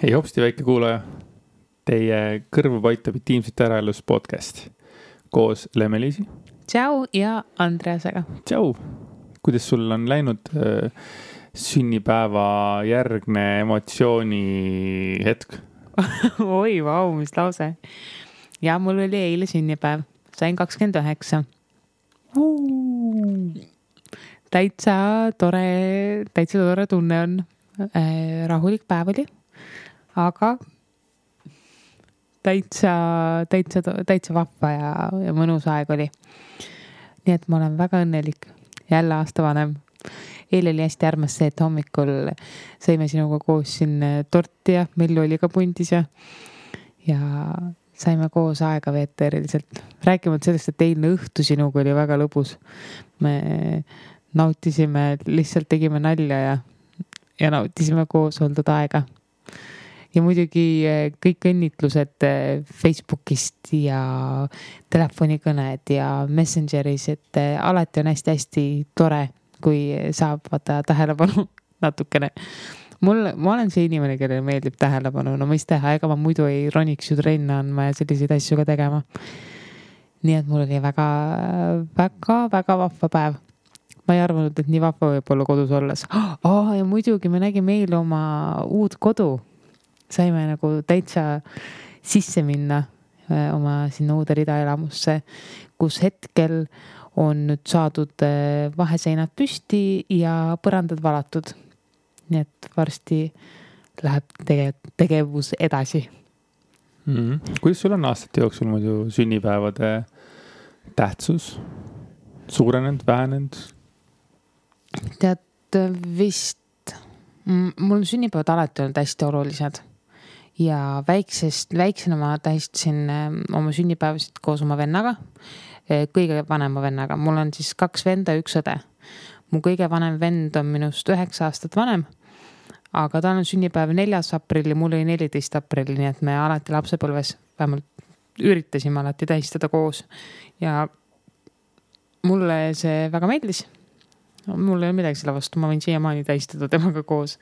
Hei hopsti väike kuulaja, teie kõrvu paitab intiimsete äraelus podcast koos Lemmeliisi. Tšau ja Andreasega. Tšau, kuidas sul on läinud sünnipäeva järgne emotsiooni hetk? Oi, vau, mis lause. Ja mul oli eile sünnipäev, sain 29. Täitsa tore tunne on. Rahulik päev oli, aga täitsa vahva ja mõnus aeg oli. Nii et ma olen väga õnnelik. Jälle aasta vanem. Eile oli hästi armas see, et hommikul sõime sinuga koos siin torti ja Mellu oli ka pundis ja saime koos aega veeta eriliselt. Rääkimata sellest, et eilne õhtu sinuga oli väga lõbus. Me nautisime, lihtsalt tegime nalja ja nautisime koos oldud aega. Ja muidugi kõik õnnitlused Facebookist ja telefonikõned ja Messengeris, et alati on hästi tore, kui saab vaata tähelepanu natukene. Ma olen see inimene, kellele meeldib tähelepanu. No mis teha, ega ma muidu ei roniks ju trenni andma ja selliseid asju ka tegema. Nii et mul oli väga vahva päev. Ma ei arvanud, et nii vahva võib olla kodus olles. Ja muidugi me nägime eile oma uut kodu. Saime nagu täitsa sisse minna oma sinna uude ridaelamusse, kus hetkel on nüüd saadud vaheseinad püsti ja põrandad valatud. Nii et varsti läheb tegevus edasi. Kuidas sul on aastate jooksul muidu sünnipäevade tähtsus? Suurenenud, vähenenud? Tead vist, mul sünnipäevad alati olnud hästi olulised ja väiksena ma tähistasin oma sünnipäevasid koos oma vennaga, kõige vanema vennaga. Mul on siis 2 venda ja 1 õde. Mu kõige vanem vend on minust 9 aastat vanem, aga ta on sünnipäev 4. aprilli, mul oli 14. aprilli, nii et me alati lapsepõlves vähemalt üritasime alati tähistada koos ja mulle see väga meeldis. Mul ei ole midagi selle vastu, ma võin siiamaani tähistada temaga koos.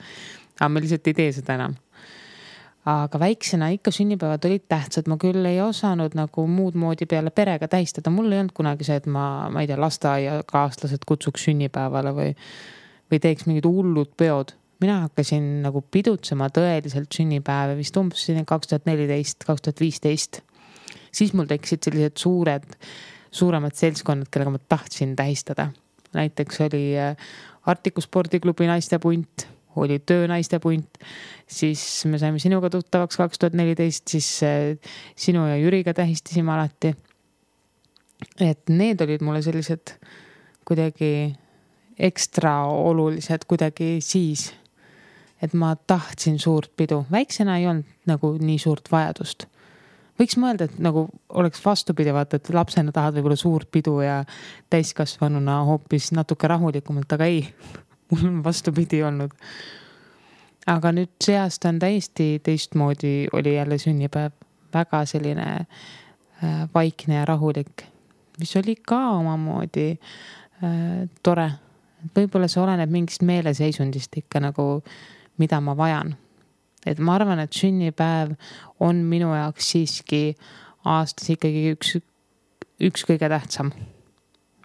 Aga me lihtsalt ei tee seda enam. Aga väiksena ikka sünnipäevad olid tähtsad. Ma küll ei osanud nagu muud moodi peale perega tähistada. Mul ei olnud kunagi see, et ma ei tea, lasteaiakaaslased kutsuks sünnipäevale või teeks mingid hullud peod. Mina hakkasin nagu pidutsema tõeliselt sünnipäeve vist umbes 2014, 2015. Siis mul tekkisid sellised suuremad seltskonnad, kellega ma tahtsin tähistada. Näiteks oli Artiku spordiklubi naistepunt, oli töönaistepunt, siis me saime sinuga tuttavaks 2014, siis sinu ja Jüriga tähistasime alati. Et need olid mulle sellised kuidagi ekstra olulised kuidagi siis, et ma tahtsin suurt pidu. Väiksena ei olnud nagu nii suurt vajadust. Võiks mõelda, et nagu oleks vastupidi, vaata, et lapsena tahad võib-olla suurt pidu ja täiskasvanuna hoopis natuke rahulikumalt, aga ei, mul on vastupidi olnud. Aga nüüd see aasta on täiesti teistmoodi, oli jälle sünnipäev, väga selline vaikne ja rahulik, mis oli ka omamoodi tore. Võib-olla see oleneb mingist meeleseisundist ikka nagu, mida ma vajan. Et ma arvan, et sünnipäev on minu jaoks siiski aastas ikkagi üks kõige tähtsam.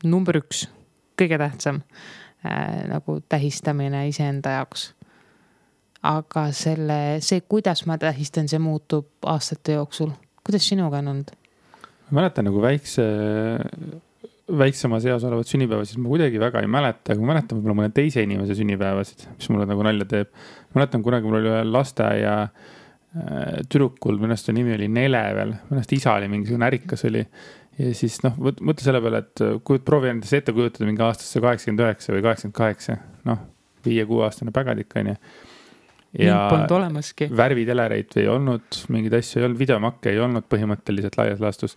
Number 1, kõige tähtsam nagu tähistamine iseenda jaoks. Aga see, kuidas ma tähistan, see muutub aastate jooksul. Kuidas sinuga on olnud? Ma mäletan nagu väiksema seas olevat sünnipäeva, siis ma kuidagi väga ei mäleta, aga ma mäletan võib-olla mõne teise inimese sünnipäevasid, mis mulle nagu nalja teeb. Ma mäletan kunagi mul oli lasteaia tüdrukul, mõnest nimi oli Nele veel, mõnest isa oli mingisugune ärikas oli ja siis mõtle selle peale, et proovi endas ette kujutada mingi aastasse 89 või 88, 5-6 aastane pägadik on ju. Ja polnud olemaski. Värvitelereit ei olnud, mingid asju ei olnud, videomakke ei olnud põhimõtteliselt laias laastus.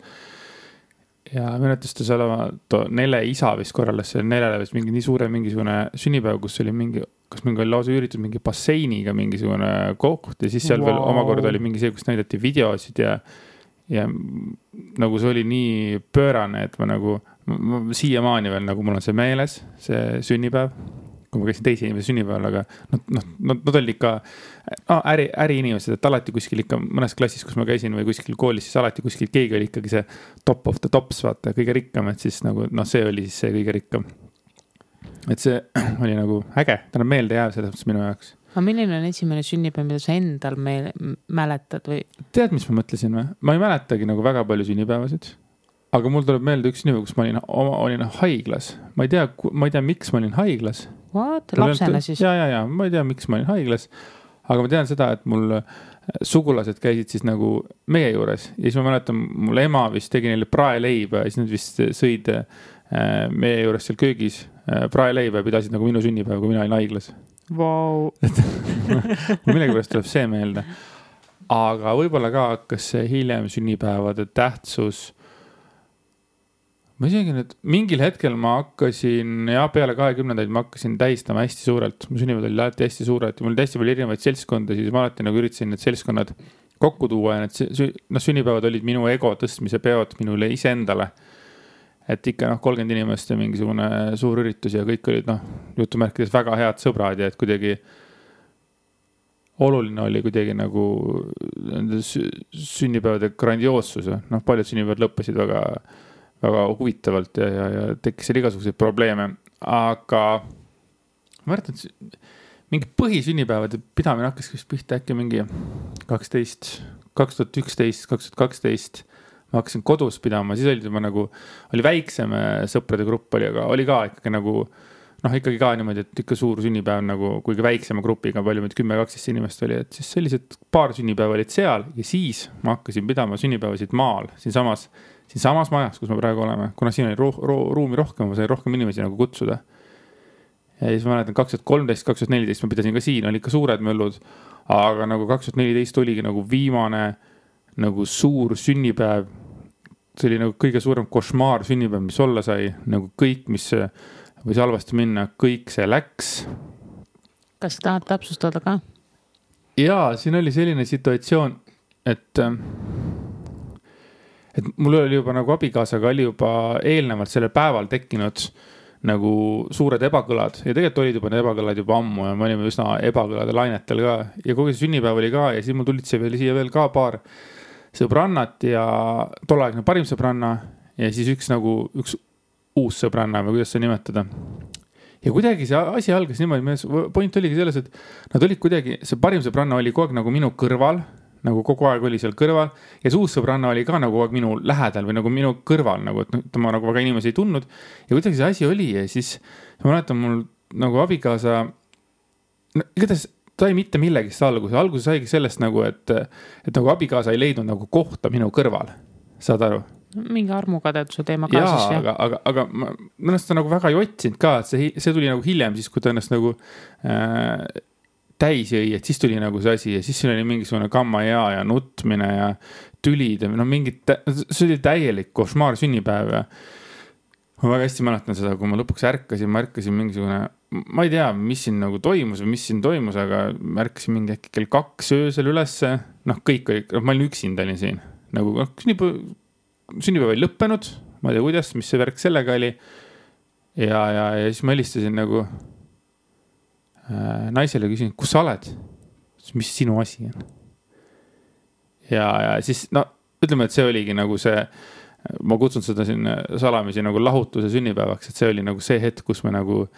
Ja meenutustas olema Nele isa vist korraldas see Nelele vist mingi nii suure mingisugune sünnipäev, kus oli kas mingi oli lausa üüritud mingi basseiniga mingisugune koht ja siis seal veel omakorda oli mingi see, kus näidati videosid ja nagu see oli nii pöörane, et ma siiamaani veel nagu mul on see meeles, see sünnipäev, kui ma käisin teise inimese sünnipäeval, aga nad olid ikka äriinimesed, et alati kuskil ikka mõnes klassis, kus ma käisin või kuskil koolis, siis alati kuskil keegi oli ikkagi see top of the tops, vaata, kõige rikkam, et siis nagu, see oli siis see kõige rikkam. Et see oli nagu äge, ta on meelde jääv selles mõttes minu jaoks. Aga milline on esimene sünnipäev, mida sa endal mäletad või? Tead, mis ma mõtlesin või? Ma ei mäletagi nagu väga palju sünnipäevasid. Aga mul tuleb meelde üks sünnipäev, kus ma olin haiglas. Ma ei tea, miks ma olin haiglas. What? Lapsena siis? Ja, ma ei tea, miks ma olin haiglas. Aga ma tean seda, et mul sugulased käisid siis nagu meie juures. Ja siis ma mäletan, mul ema vist tegi neile praeleiba ja siis nad vist sõid meie juures seal köögis praeleiba ja pidasid nagu minu sünnipäev, kui mina olin haiglas. Wow. Millegi pärast tuleb see meelde. Aga võib-olla ka hakkas see hiljem sünnipäevade tähtsus. Ma isegi nüüd, mingil hetkel ma hakkasin, peale 20-ndaid ma hakkasin tähistama hästi suurelt. Mu sünnipäevad oli alati hästi suurelt ja mul oli hästi palju erinevaid seltskonda, siis ma alati nagu üritasin need seltskonnad kokku tuua ja need sünnipäevad olid minu ego tõstmise peod minule iseendale. Et ikka 30 inimest ja mingisugune suur üritus ja kõik olid jutumärkides väga head sõbrad ja et kuidagi oluline oli kuidagi nagu sünnipäevade grandioossus. Paljud sünnipäevad lõppesid väga, väga huvitavalt ja tekkis seal igasuguseid probleeme. Aga ma arvan, et mingi põhisünnipäevade pidamine hakkas pihta äkki mingi 2011, 2012. Ma hakkasin kodus pidama, siis oli väiksem sõprade grupp oli, aga oli ka ikkagi nagu, ikkagi ka niimoodi, et ikka suur sünnipäev nagu, kuigi väiksema grupiga palju, 10-12 inimest oli, et siis sellised paar sünnipäev olid seal ja siis ma hakkasin pidama sünnipäevasid maal, siinsamas majas, kus me praegu oleme, kuna siin oli ruumi rohkem, ma sain rohkem inimesi nagu kutsuda. Ja siis ma mäletan 2013, 2014 ma pidasin ka siin, oli ikka suured möllud, aga nagu 2014 oligi nagu viimane nagu suur sünnipäev, see oli nagu kõige suurem košmaar sünnipäev, mis olla sai, nagu kõik, mis võis halvasti minna, kõik see läks. Kas tahad täpsustada ka? Jaa, siin oli selline situatsioon, et mul oli juba nagu abikaasaga oli juba eelnevalt sellel päeval tekkinud nagu suured ebakõlad ja tegelikult olid juba need ebakõlad juba ammu ja me olime üsna ebakõlade lainetel ka ja kogu see sünnipäev oli ka ja siis mul tulid siia veel ka paar sõbrannat ja tolleaegne parim sõbranna ja siis üks uus sõbranna või kuidas see nimetada. Ja kuidagi see asi algas niimoodi, point oligi selles, et nad olid kuidagi, see parim sõbranna oli kogu aeg nagu minu kõrval, nagu kogu aeg oli seal kõrval ja see uus sõbranna oli ka nagu kogu aeg minu lähedal või nagu minu kõrval, nagu, et ma nagu väga inimesi ei tundnud ja kuidagi see asi oli ja siis ma mäletan mul nagu abikaasa, igatahes ta ei mitte millegist alguses saigi sellest nagu, et nagu abikaasa ei leidnud nagu kohta minu kõrval, saad aru? Mingi armukadeduse teema kaasas. Jaa, aga ma ennast nagu väga ei otsinud ka, et see tuli nagu hiljem siis, kui ta ennast nagu täis jõi, et siis tuli nagu see asi ja siis siin oli mingisugune kamma ja nutmine ja tülid ja see oli täielik košmaar sünnipäev ja ma väga hästi mäletan seda, kui ma lõpuks ärkasin mingisugune, ma ei tea, mis siin nagu toimus või mis siin toimus, aga ma ärkasin mingi äkki kell 2 öösel ülesse, kõik oli, ma olin üksinda olin siin, nagu sünnipäev oli lõppenud, ma ei tea kuidas, mis see värk sellega oli ja siis ma helistasin nagu naisele küsin, kus sa oled? Mis sinu asi on? Ja siis, ütleme, et see oligi nagu see, ma kutsun seda siin salamisi nagu lahutuse sünnipäevaks, et see oli nagu see hetk, kus me nagu,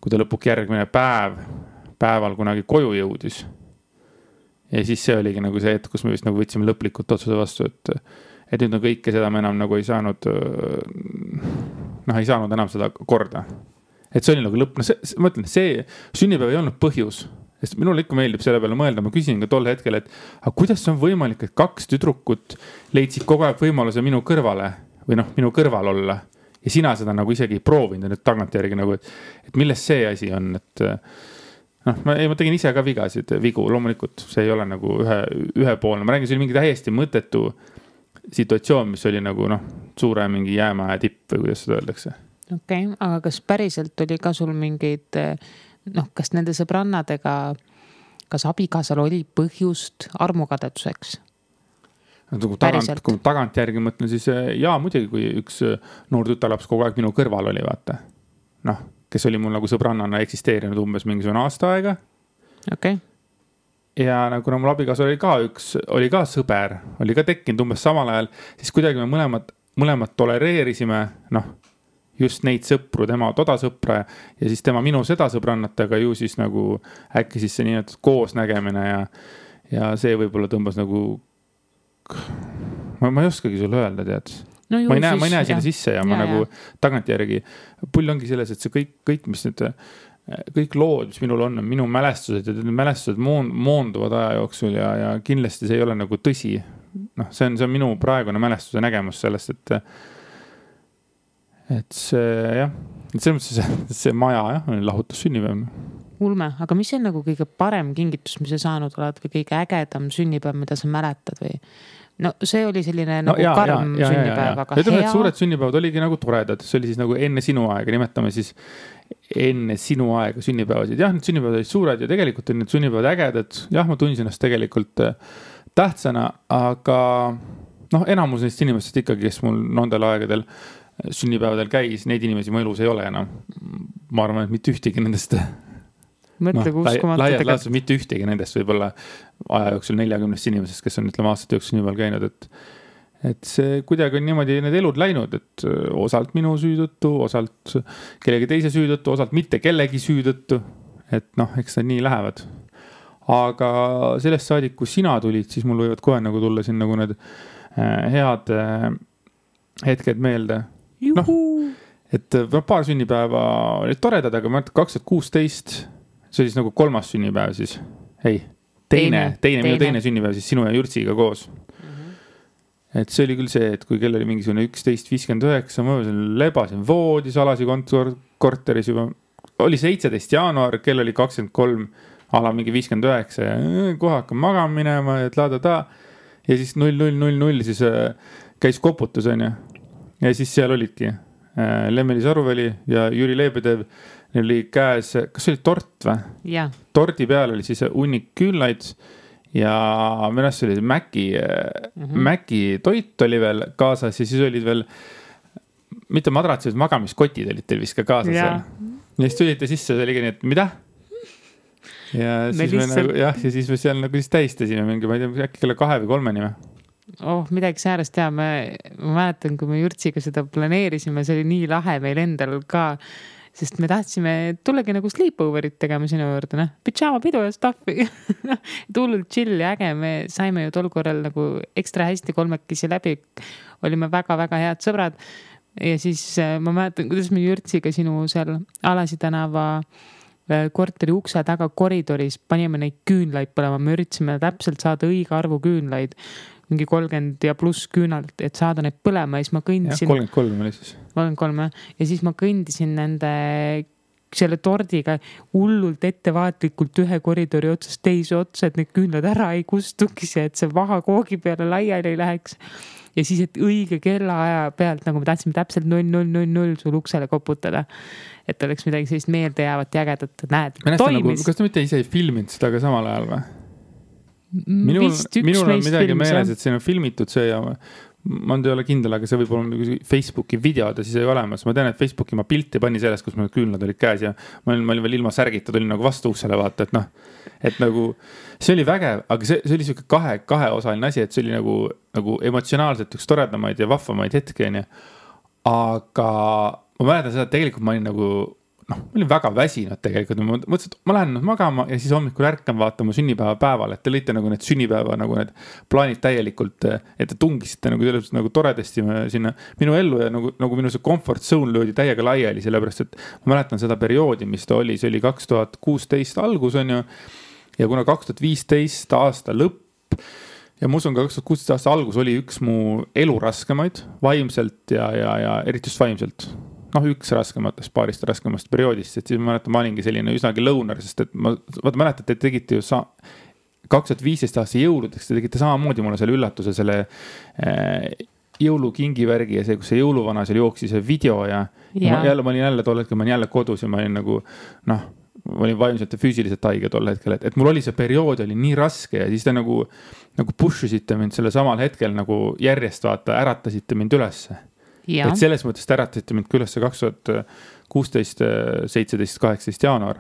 kui ta lõpuk järgmine päeval kunagi koju jõudis. Ja siis see oligi nagu see hetk, kus me vist nagu võtsime lõplikult otsuse vastu, et nüüd on kõike seda me enam nagu ei saanud enam seda korda. Et see oli nagu lõpp, ma ütlen, see sünnipäev ei olnud põhjus, sest minul ikka meeldib selle peale mõelda, ma küsin ka tol hetkel, et kuidas see on võimalik, et 2 tüdrukut leidsid kogu aeg võimaluse minu kõrvale või minu kõrval olla ja sina seda nagu isegi ei proovinud nüüd tagantjärgi nagu, et millest see asi on, et ma tegin ise ka vigu, loomulikult see ei ole nagu ühepoolne, ma räägin, see oli mingi täiesti mõttetu situatsioon, mis oli nagu suure mingi jäämäe tipp või kuidas seda öeldakse. Okei, aga kas päriselt oli ka sul mingeid, kas nende sõbrannadega, kas abikaasal oli põhjust armukadeduseks? Kui tagant järgi mõtlen, siis jaa, muidugi, kui üks noor tütarlaps kogu aeg minu kõrval oli, vaata. kes oli mul nagu sõbrannana eksisteerinud umbes mingisugune aasta aega. Okay. Ja nagu kuna mul abikaasa oli ka sõber, oli ka tekkinud umbes samal ajal, siis kuidagi me mõlemad tolereerisime, just neid sõpru, tema toda sõpra ja siis tema minu seda sõbrannat, aga ju siis nagu äkki siis see nii koos nägemine ja see võib-olla tõmbas nagu, ma ei oskagi sulle öelda, tead. No ma ei näe sinna sisse ja ma nagu tagantjärgi, pull ongi selles, et see kõik, mis nüüd, kõik lood, mis minul on minu mälestused ja need mälestused moonduvad aja jooksul ja kindlasti see ei ole nagu tõsi. See on minu praegune mälestuse nägemus sellest, et see jah, et selles mõttes see maja jah, on lahutus sünnipäev. Ulme, aga mis on nagu kõige parem kingitus, mis sa saanud oled või kõige ägedam sünnipäev, mida sa mäletad või? No see oli selline nagu karm sünnipäev, aga hea. Suured sünnipäevad oligi nagu toredad, see oli siis nagu enne sinu aega, nimetame siis enne sinu aega sünnipäevasid. Jah, need sünnipäevad olid suured ja tegelikult on need sünnipäevad ägedad. Jah, ma tundsin ennast tegelikult tähtsana, aga enamus neist inimestest ikkagi, kes mul nendel aegadel sünnipäevadel käis, neid inimesi mu elus ei ole enam. Ma arvan, et mitte ühtegi nendest mõtle, laias laastus mitte ühtegi nendest võib-olla aja jooksul 40 inimesest, kes on ütleme aastate jooksul nii palju käinud, et see kuidagi on niimoodi need elud läinud, et osalt minu süüdõttu, osalt kellegi teise süüdõttu, osalt mitte kellegi süüdõttu, et eks need nii lähevad. Aga sellest saadik, kui sina tulid, siis mul võivad kohe nagu tulla siin nagu need head hetked meelde. Et paar sünnipäeva olid toredad, aga ma arvan, 2016 see oli siis nagu 3. sünnipäev siis. Ei, minu teine sünnipäev siis sinu ja Jürtsiga koos. Et see oli küll see, et kui kell oli mingisugune 11.59, ma lebasin voodis alasi korteris juba. Oli 17. jaanuar, kell oli 23, ala mingi 59 ja kohe hakkam magama minema ja ja siis 0000 siis käis koputus on ja siis seal olidki Lemmeli Saruväli ja Jüri Leebedev. Neil oli käes, kas see oli tort või? Ja. Tordi peal oli siis hunnik küünlaid ja minu arust oli Mäki toit oli veel kaasas ja siis olid veel mitte madratsid, magamiskotid olid teil vist ka kaasas seal. Ja siis tulite sisse, see oligi nii, et mida? Ja siis me seal nagu siis tähistasime mingi, ma ei tea, äkki kella 2 või 3 nime. Midagi säärast ja ma mäletan, kui me Jürtsiga seda planeerisime, see oli nii lahe meil endal ka, sest me tahtsime tullagi nagu sleepoverit tegema sinu juurde, pidžaama pidu ja staffi. Tullult chill ja äge, me saime ju tol korral nagu ekstra hästi kolmekesi läbi, olime väga-väga head sõbrad ja siis ma mäletan, kuidas me Jürtsiga sinu seal Alasi tänava korteri ukse taga koridoris panime neid küünlaid põlema, me üritasime täpselt saada õige arvu küünlaid, mingi 30 ja pluss küünalt, et saada need põlema ja siis ma kõndisin. 33 oli siis. 33 ja siis ma kõndisin selle tordiga hullult ettevaatlikult ühe koridori otsast teise otsa, et need küünlad ära ei kustukis ja et see vaha koogi peale laiali ei läheks. Ja siis, et õige kellaaja pealt, nagu me tahtsime täpselt 0000 sul uksele koputada, et oleks midagi sellist meelde jäävat ja ägedat, näed, toimis. Kas ta mitte ise ei filminud seda ka samal ajal või? Minul on midagi meeles, et siin on filmitud see ja ma ei ole kindel, aga see võib olla Facebooki videod ja siis ei olemas. Ma tean, et Facebooki ma pilti pani sellest, kus mul küünlad olid käes ja ma olin veel ilma särgita, tulin nagu vastu uksele vaata, et nagu see oli vägev, aga see oli siuke kaheosaline asi, et see oli nagu emotsionaalselt üks toredamaid ja vahvamaid hetki, aga ma mäletan seda, et tegelikult ma olin nagu ma olin väga väsinud tegelikult, ma mõtlesin, et ma lähen magama ja siis hommikul ärkan vaatama sünnipäeva päeval, et te lõite nagu need sünnipäeva nagu need plaanid täielikult, et te tungisite nagu toredasti sinna minu ellu ja nagu minu see comfort zone löödi täiega laiali, sellepärast, et ma mäletan seda perioodi, mis ta oli, see oli 2016 algus on ju ja kuna 2015 aasta lõpp ja ma usun ka 2016 aasta algus oli üks mu elu raskemaid vaimselt ja eriti just vaimselt. Üks raskematest, paarist raskemast perioodist, et siis ma mäletan, ma olingi selline üsnagi lõunar, sest et mäletan, et te tegite ju 2015 aasta jõuludeks, te tegite samamoodi mulle selle üllatuse, selle jõulukingivärgi ja see, kus see jõuluvana seal jooksis see video ja ma olin jälle tol hetkel, ma olin jälle kodus ja ma olin nagu, ma olin vaimselt ja füüsiliselt haige tol hetkel, et mul oli see periood oli nii raske ja siis te nagu pushusite mind selle samal hetkel nagu järjest vaata, äratasite mind ülesse. Ja. Et selles mõttes te äratasite mind küll 2016, 17, 18 jaanuar.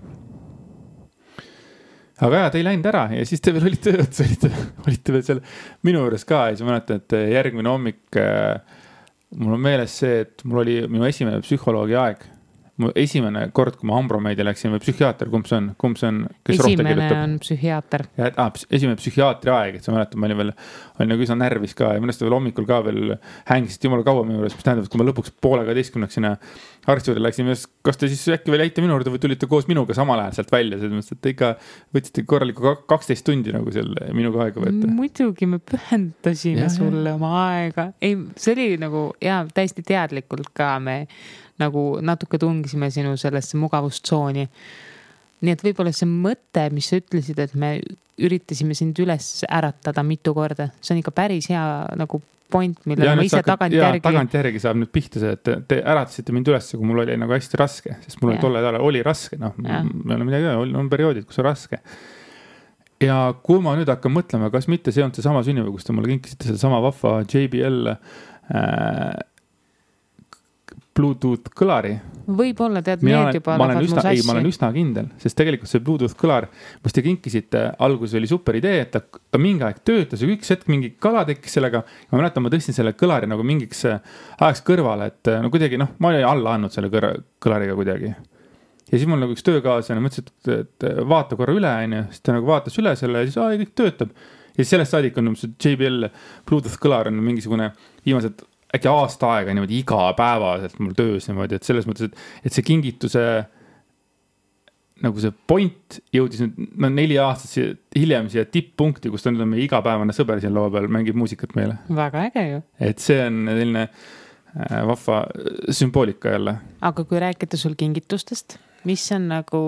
Aga te ei läinud ära ja siis te veel olite veel seal minu juures ka ja siis ma mäletan, et järgmine hommik mul on meeles see, et mul oli minu esimene psühholoogi aeg. Mu esimene kord, kui ma Ambromeedi läksin või psühhiaater, kumb see on, kes rohte kirjutab? Esimene on psühhiaater. Esimene psühhiaatri aeg, et sa mäletad, ma olin nagu üsna närvis ka ja mõnest veel hommikul ka veel hängisid jumala kaua minu juures, mis tähendab, et kui ma lõpuks 11:30 sinna arsti juurde läksin, kas te siis äkki veel jäite minu juurde või tulite koos minuga samal ajal sealt välja, et te ikka võtsite korraliku 12 tundi nagu seal minuga aega võtta. Muidugi me pühendasime sulle oma aega. Ei, see oli nagu täiesti teadlikult ka me nagu natuke tungisime sinu sellesse mugavustsooni. Nii et võib-olla see mõte, mis sa ütlesid, et me üritasime sind üles äratada mitu korda, see on ikka päris hea nagu point, millele ma ise tagantjärgi saab nüüd pihta see, et te äratasite mind üles, kui mul oli nagu hästi raske, sest mul tolle ajal oli raske, me oleme midagi, on perioodid, kus on raske. Ja kui ma nüüd hakkan mõtlema, kas mitte see on see sama sünnipäev, kus te mulle kinkisite seda sama vahva JBL Bluetooth kõlari. Võib-olla tead meed juba ma olen üsna kindel, sest tegelikult see Bluetooth kõlar, mis te kinkisite, alguses oli super idee, et ta mingi aeg töötas ja üks hetk mingi kala tekkis sellega. Ma mäletan, ma tõstin selle kõlari nagu mingiks ajaks kõrvale, et no kuidagi, ma olin alla andnud selle kõlariga kuidagi. Ja siis mul nagu üks töökaaslane mõtles, et vaata korra üle, siis ta nagu vaatas üle selle ja siis kõik töötab. Ja siis sellest saadik on JBL Bluetooth kõlar on mingisugune viimased äkki aasta aega niimoodi iga päevaselt mul töös niimoodi, et selles mõttes, et see kingituse nagu see point jõudis nüüd 4 aastat hiljem siia tipppunkti, kus ta nüüd on meie igapäevane sõber siin laua peal, mängib muusikat meile. Väga äge ju. Et see on selline vahva sümboolika jälle. Aga kui rääkida sul kingitustest, mis on nagu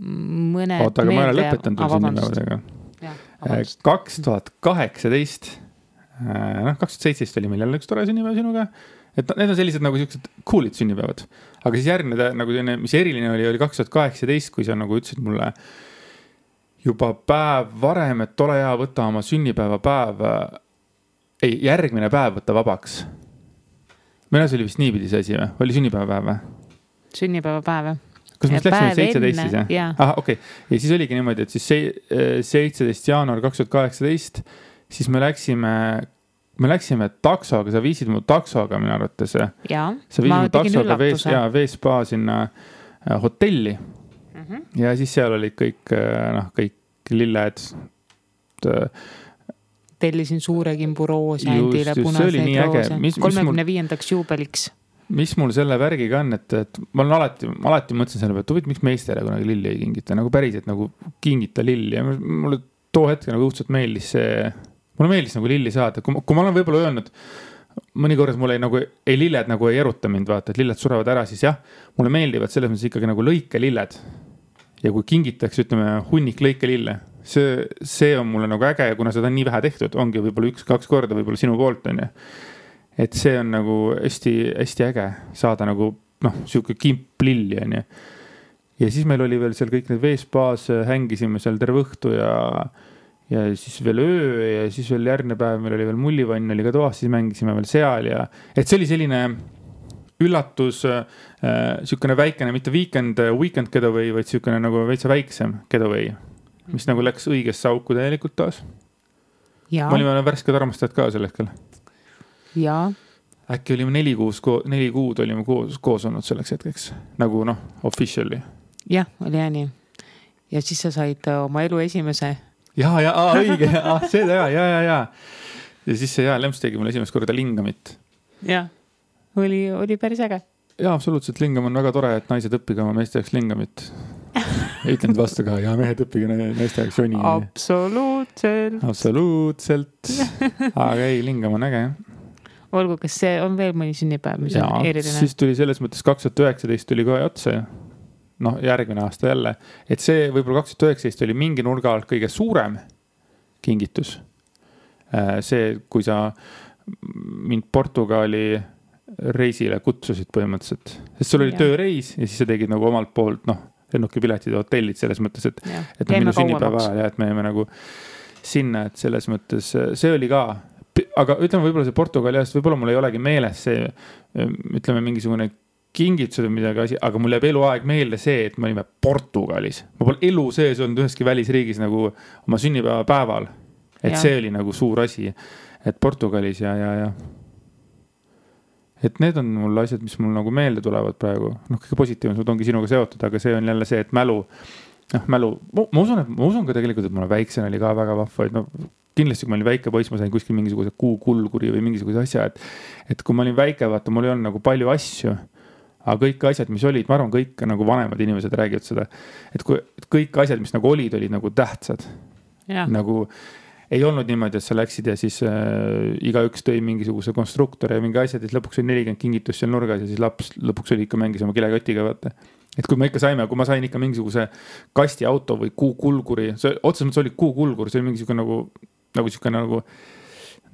mõned aga ma olen lõpetanud sünnipäevadega. 2018 2017 oli meil jälle üks tore sünnipäev sinuga, et need on sellised nagu sellised coolid sünnipäevad, aga siis järgmine nagu selline, mis eriline oli 2018, kui sa nagu ütlesid mulle juba päev varem, et ole hea, võta oma sünnipäeva päev, järgmine päev võtta vabaks. Meil see oli vist niipidi see asi või? Oli sünnipäeva päev või? Sünnipäeva päev. Kas me läksime 17 siis, jah? Aha, okei. Ja siis oligi niimoodi, et siis 17 jaanuar 2018 siis me läksime taksoga, sa viisid mu taksoga minu arvates. Jaa, ma tegin üllatuse. Veespa sinna hotelli. Ja siis seal olid kõik lilled. Tellisin suure kimbu roose, endile punaseid roose. 35. juubeliks. Mis mul selle värgiga on, et ma olen alati mõtlesin selle peale, et huvitav, miks meestele kunagi lilli ei kingita, nagu päriselt nagu kingita lilli. Ja mulle too hetk nagu õudselt meeldis see... Mulle meeldis nagu lilli saada, kui ma olen võib-olla öelnud, mõni kord mulle ei lilled nagu ei eruta mind, vaata, et lilled surevad ära, siis jah, mulle meeldivad selles mõttes ikkagi nagu lõikelilled. Ja kui kingitakse, ütleme, hunnik lõikelille, see on mulle nagu äge ja kuna seda on nii vähe tehtud, ongi võib-olla 1-2 korda võib-olla sinu poolt on. Et see on nagu hästi, hästi äge saada nagu, siuke kimp lilli on. Ja siis meil oli veel seal kõik need veespaas, hängisime seal terve õhtu ja siis veel öö ja siis veel järgmine päev meil oli veel mullivann, oli ka toas, siis mängisime veel seal ja et see oli selline üllatus, siukene väikene, mitte weekend getaway, vaid siukene nagu veitsa väiksem getaway, mis nagu läks õigesse auku täielikult taas. Ma olime värsked armastajad ka sel hetkel. Jaa. Äkki olime 4 kuud olime koos olnud selleks hetkeks, nagu officially. Jah, oli nii. Ja siis sa said oma elu esimese õige, see ta ja. Ja siis see Lemps tegi mulle esimest korda lingamit. Jah, oli päris äge. Jaa, absoluutselt, lingam on väga tore, et naised õppige oma meeste jaoks lingamit. Ütlen vastu ka, ja mehed õppige naiste jaoks joni. Absoluutselt. Aga ei, lingam on äge. Olgu, kas see on veel mõni sünnipäev, mis on eriline? Siis tuli selles mõttes 2019 tuli kohe otsa järgmine aasta jälle, et see võib-olla 2019 oli mingi nurga alt kõige suurem kingitus. See, kui sa mind Portugali reisile kutsusid põhimõtteliselt, sest sul oli tööreis ja siis sa tegid nagu omalt poolt, lennukipiletid ja hotellid selles mõttes, et minu sünnipäeva ajal ja et me jäime nagu sinna, et selles mõttes see oli ka aga ütleme võib-olla see Portugali ajast, võib-olla mul ei olegi meeles see, ütleme mingisugune kingitused või midagi asi, aga mul jääb eluaeg meelde see, et me olime Portugalis. Ma pole elu sees olnud üheski välisriigis nagu oma sünnipäeva päeval. Et see oli nagu suur asi, et Portugalis ja. Et need on mul asjad, mis mul nagu meelde tulevad praegu. Kõige positiivsed ongi sinuga seotud, aga see on jälle see, et mälu, ma usun ka tegelikult, et mul väiksena oli ka väga vahva, et kindlasti, kui ma olin väike poiss, ma sain kuskil mingisuguse kuukulguri või mingisuguse asja, et kui ma olin väike, vaata, mul ei olnud nagu palju asju, aga kõik asjad, mis olid, ma arvan, kõik nagu vanemad inimesed räägivad seda, et kõik asjad, mis nagu olid nagu tähtsad. Ja. Nagu ei olnud niimoodi, et sa läksid ja siis igaüks tõi mingisuguse konstruktori ja mingi asjad, et lõpuks oli 40 kingitust seal nurgas ja siis laps lõpuks oli ikka mängis oma kilekotiga, vaata. Et kui ma sain ikka mingisuguse kastiauto või kuukulguri, otseselt mõttes oli kuukulgur, see oli mingisugune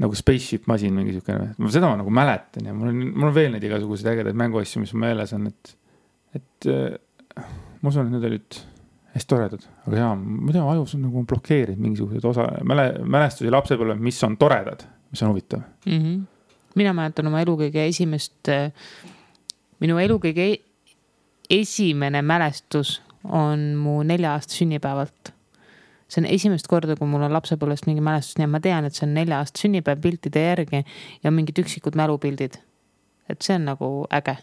nagu spaceship masin mingisugune. Seda ma nagu mäletan ja mul on veel need igasuguseid ägedaid mänguasju, mis ma meeles on, et ma usun, et need olid hästi toredad, aga jaa, mida ajus on nagu blokeerinud mingisugused mälestusi lapsepõlve, mis on toredad, mis on huvitav. Mina mäletan oma elu kõige minu elu kõige esimene mälestus on mu 4-aasta sünnipäevalt. See on esimest korda, kui mul on lapsepõlvest mingi mälestus, nii et ma tean, et see on 4-aasta sünnipäev piltide järgi ja mingid üksikud mälupildid. Et see on nagu äge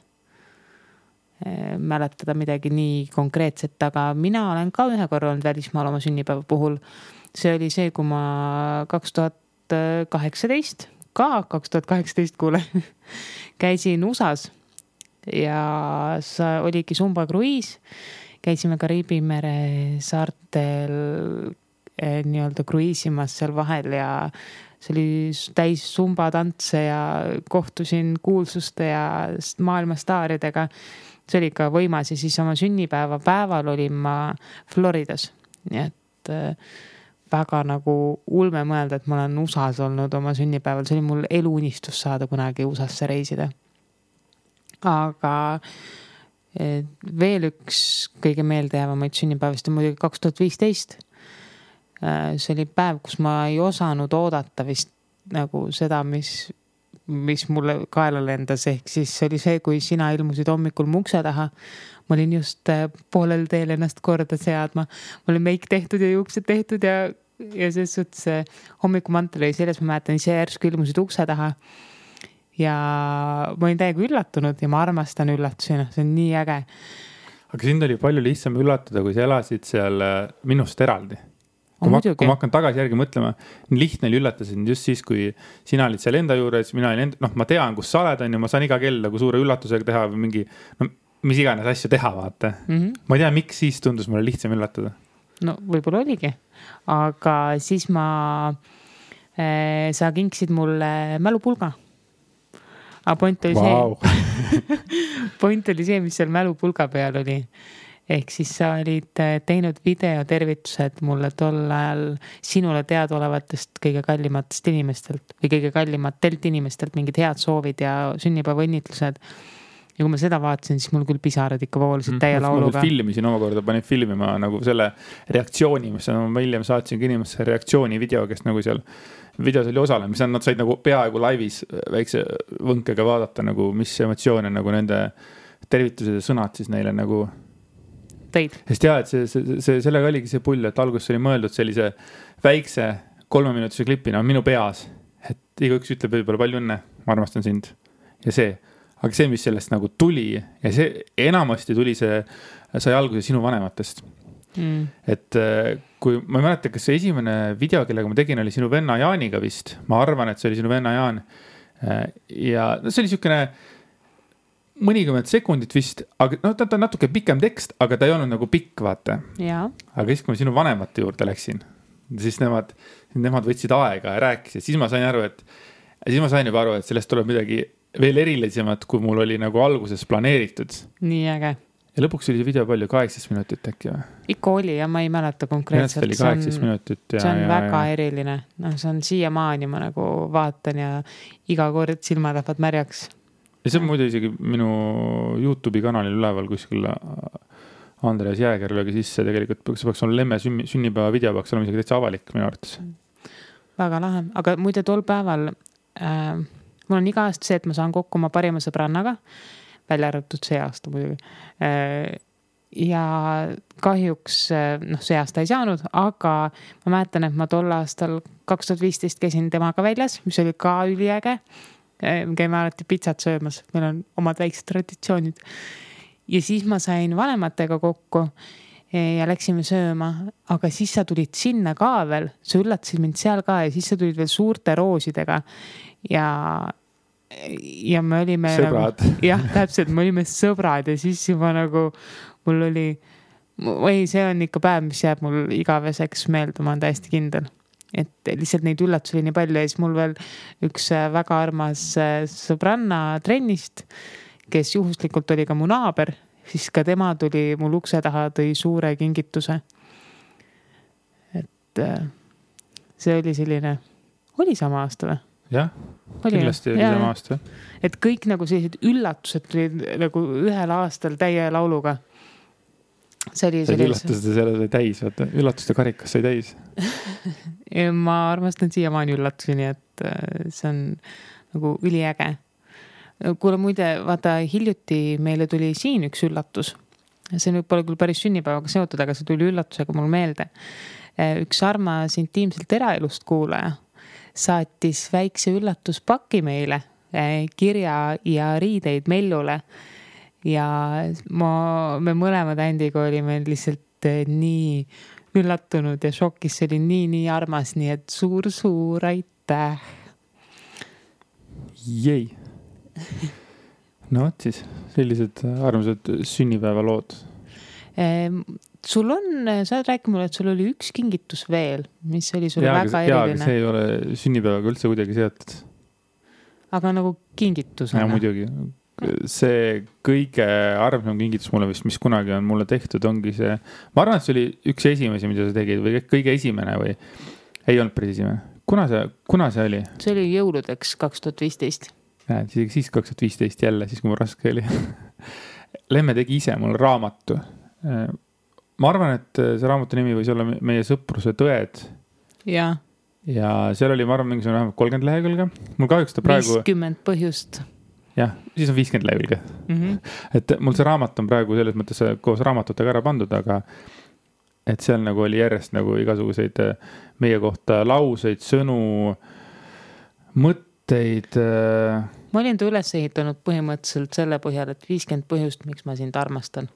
mäletada midagi nii konkreetset, aga mina olen ka ühe korra olnud välismaal oma sünnipäeva puhul. See oli see, kui ma 2018 kuule, käisin USAs ja oligi Sumba kruiis. Käisime Kariibi mere saartel nii-öelda kruiisimas seal vahel ja see oli täis Sumba tantse ja kohtusin kuulsuste ja maailmastaaridega. See oli ikka võimas ja siis oma sünnipäeva päeval olin ma Floridas. Nii et väga nagu ulme mõelda, et ma olen USAs olnud oma sünnipäeval. See oli mul eluunistus saada kunagi USAsse reisida. Aga veel üks kõige meeldejäävamaid sünnipäevast on muidugi 2015. See oli päev, kus ma ei osanud oodata vist nagu seda, mis mulle kaela lendas, ehk siis see oli see, kui sina ilmusid hommikul mu ukse taha. Ma olin just poolel teel ennast korda seadma. Ma olin meik tehtud ja juuksed tehtud ja selles suhtes hommikumantel oli selles, ma mäletan ise järsku ilmusid ukse taha. Ja ma olin täiega üllatunud ja ma armastan üllatusena, see on nii äge. Aga sind oli palju lihtsam üllatada, kui sa elasid seal minust eraldi. Kui ma hakkan tagasi järgi mõtlema, lihtne oli üllatada sind just siis, kui sina olid seal enda juures, mina olin ma tean, kus sa oled, ja ma saan iga kell nagu suure üllatusega teha või mingi, mis iganes asju teha, vaata. Ma ei tea, miks siis tundus mulle lihtsam üllatada. No võib-olla oligi, aga siis sa kinksid mulle mälupulga. Aga point oli see, mis seal mälupulga peal oli. Ehk siis sa olid teinud videotervitused mulle tol ajal sinule teadaolevatest kõige kallimatest inimestelt või kõige kallimatelt inimestelt mingid head soovid ja sünnipäeva õnnitlused. Ja kui ma seda vaatasin, siis mul küll pisarad ikka voolisid täie lauluga. Ma filmisin omakorda, panin filmima nagu selle reaktsiooni, mis ma hiljem saatsin inimesse reaktsiooni video, kes nagu seal videos oli osale, mis nad said nagu peaaegu laivis väikse võnkega vaadata, nagu mis emotsioone nagu nende tervitused ja sõnad siis neile nagu teid. Sest jah, et sellega oligi see pull, et alguses oli mõeldud sellise väikse 3-minutise klipina minu peas, et igaüks ütleb võib-olla palju õnne, ma armastan sind ja see. Aga see, mis sellest nagu tuli ja see enamasti tuli sai alguse sinu vanematest. Et kui ma ei mäleta, kas see esimene video, kellega ma tegin, oli sinu venna Jaaniga vist. Ma arvan, et see oli sinu venna Jaan. Ja see oli siukene mõnikümmend sekundit vist, aga ta on natuke pikem tekst, aga ta ei olnud nagu pikk, vaata. Ja. Aga siis, kui ma sinu vanemate juurde läksin, siis nemad võtsid aega ja rääkisid. Siis ma sain juba aru, et sellest tuleb midagi veel erilisemat, kui mul oli nagu alguses planeeritud. Nii äge. Ja lõpuks oli see video palju 18 minutit äkki või? Ikka oli ja ma ei mäleta konkreetselt. Oli 18 minutit. See on väga eriline. No, see on siiamaani ma nagu vaatan ja iga kord silmad lähevad märjaks. Ja see on muidu isegi minu YouTube'i kanalil üleval kuskil Andres Jääger löögi sisse. Tegelikult see peaks olla Lemme sünnipäeva video, peaks olema isegi täitsa avalik minu arvates. Väga lahe. Aga muide tol päeval mul on iga aasta see, et ma saan kokku oma parima sõbrannaga, välja arvatud see aasta muidugi. Ja kahjuks see aasta ei saanud, aga ma mäletan, et ma tol aastal 2015 käisin temaga väljas, mis oli ka üliäge. Käime alati pitsat söömas, meil on omad väiksed traditsioonid. Ja siis ma sain vanematega kokku ja läksime sööma, aga siis sa tulid sinna ka veel, sa üllatasid mind seal ka ja siis sa tulid veel suurte roosidega ja me olime sõbrad. Jah, täpselt, me olime sõbrad ja siis juba nagu mul oli, see on ikka päev, mis jääb mul igaveseks meelde, ma olen täiesti kindel. Et lihtsalt neid üllatusi oli nii palju ja siis mul veel üks väga armas sõbranna trennist, kes juhuslikult oli ka mu naaber, siis ka tema tuli mul ukse taha, tõi suure kingituse. Et see oli selline, oli sama aasta või? Jah, kindlasti oli sama aasta. Et kõik nagu sellised üllatused tulid nagu ühel aastal täie lauluga. See üllatuste selle sai täis, vaata. Üllatuste karikas sai täis. Ma armastan siiamaani üllatusi, nii et see on nagu üliäge. Kuule muide, vaata hiljuti meile tuli siin üks üllatus. See nüüd pole küll päris sünnipäevaga seotud, aga see tuli üllatusega mul meelde. Üks armas intiimselt eraelust kuulaja saatis väikse üllatuspaki meile, kirja ja riideid Mellule. Ja me mõlemad Andiga olime lihtsalt nii üllatunud ja šokis, see oli nii armas, nii et suur aitäh. Jei. No siis, sellised armsad sünnipäeva lood. Sul on, sa räägi mulle, et sul oli üks kingitus veel, mis oli sulle väga eriline. Aga see ei ole sünnipäevaga üldse kuidagi seotud. Aga nagu kingitus. Ja muidugi. See kõige armsam kingitus mulle vist, mis kunagi on mulle tehtud, ongi see, ma arvan, et see oli üks esimesi, mida sa tegid või kõige esimene või ei olnud päris esimene. Kuna see oli? See oli jõuludeks 2015. Siis 2015 jälle, siis kui mul raske oli. Lemme tegi ise mul raamatu. Ma arvan, et see raamatu nimi võis olla meie sõpruse tõed. Ja seal oli, ma arvan, mingisugune vähemalt 30 lehekülge. Mul kahjuks ta praegu... 50 põhjust. Jah, siis on 50 lehekülge. Et mul see raamat on praegu selles mõttes koos raamatutega ära pandud, aga et seal nagu oli järjest nagu igasuguseid meie kohta lauseid, sõnu, mõtteid. Ma olin ta üles ehitanud põhimõtteliselt selle põhjal, et 50 põhjust, miks ma sind armastan.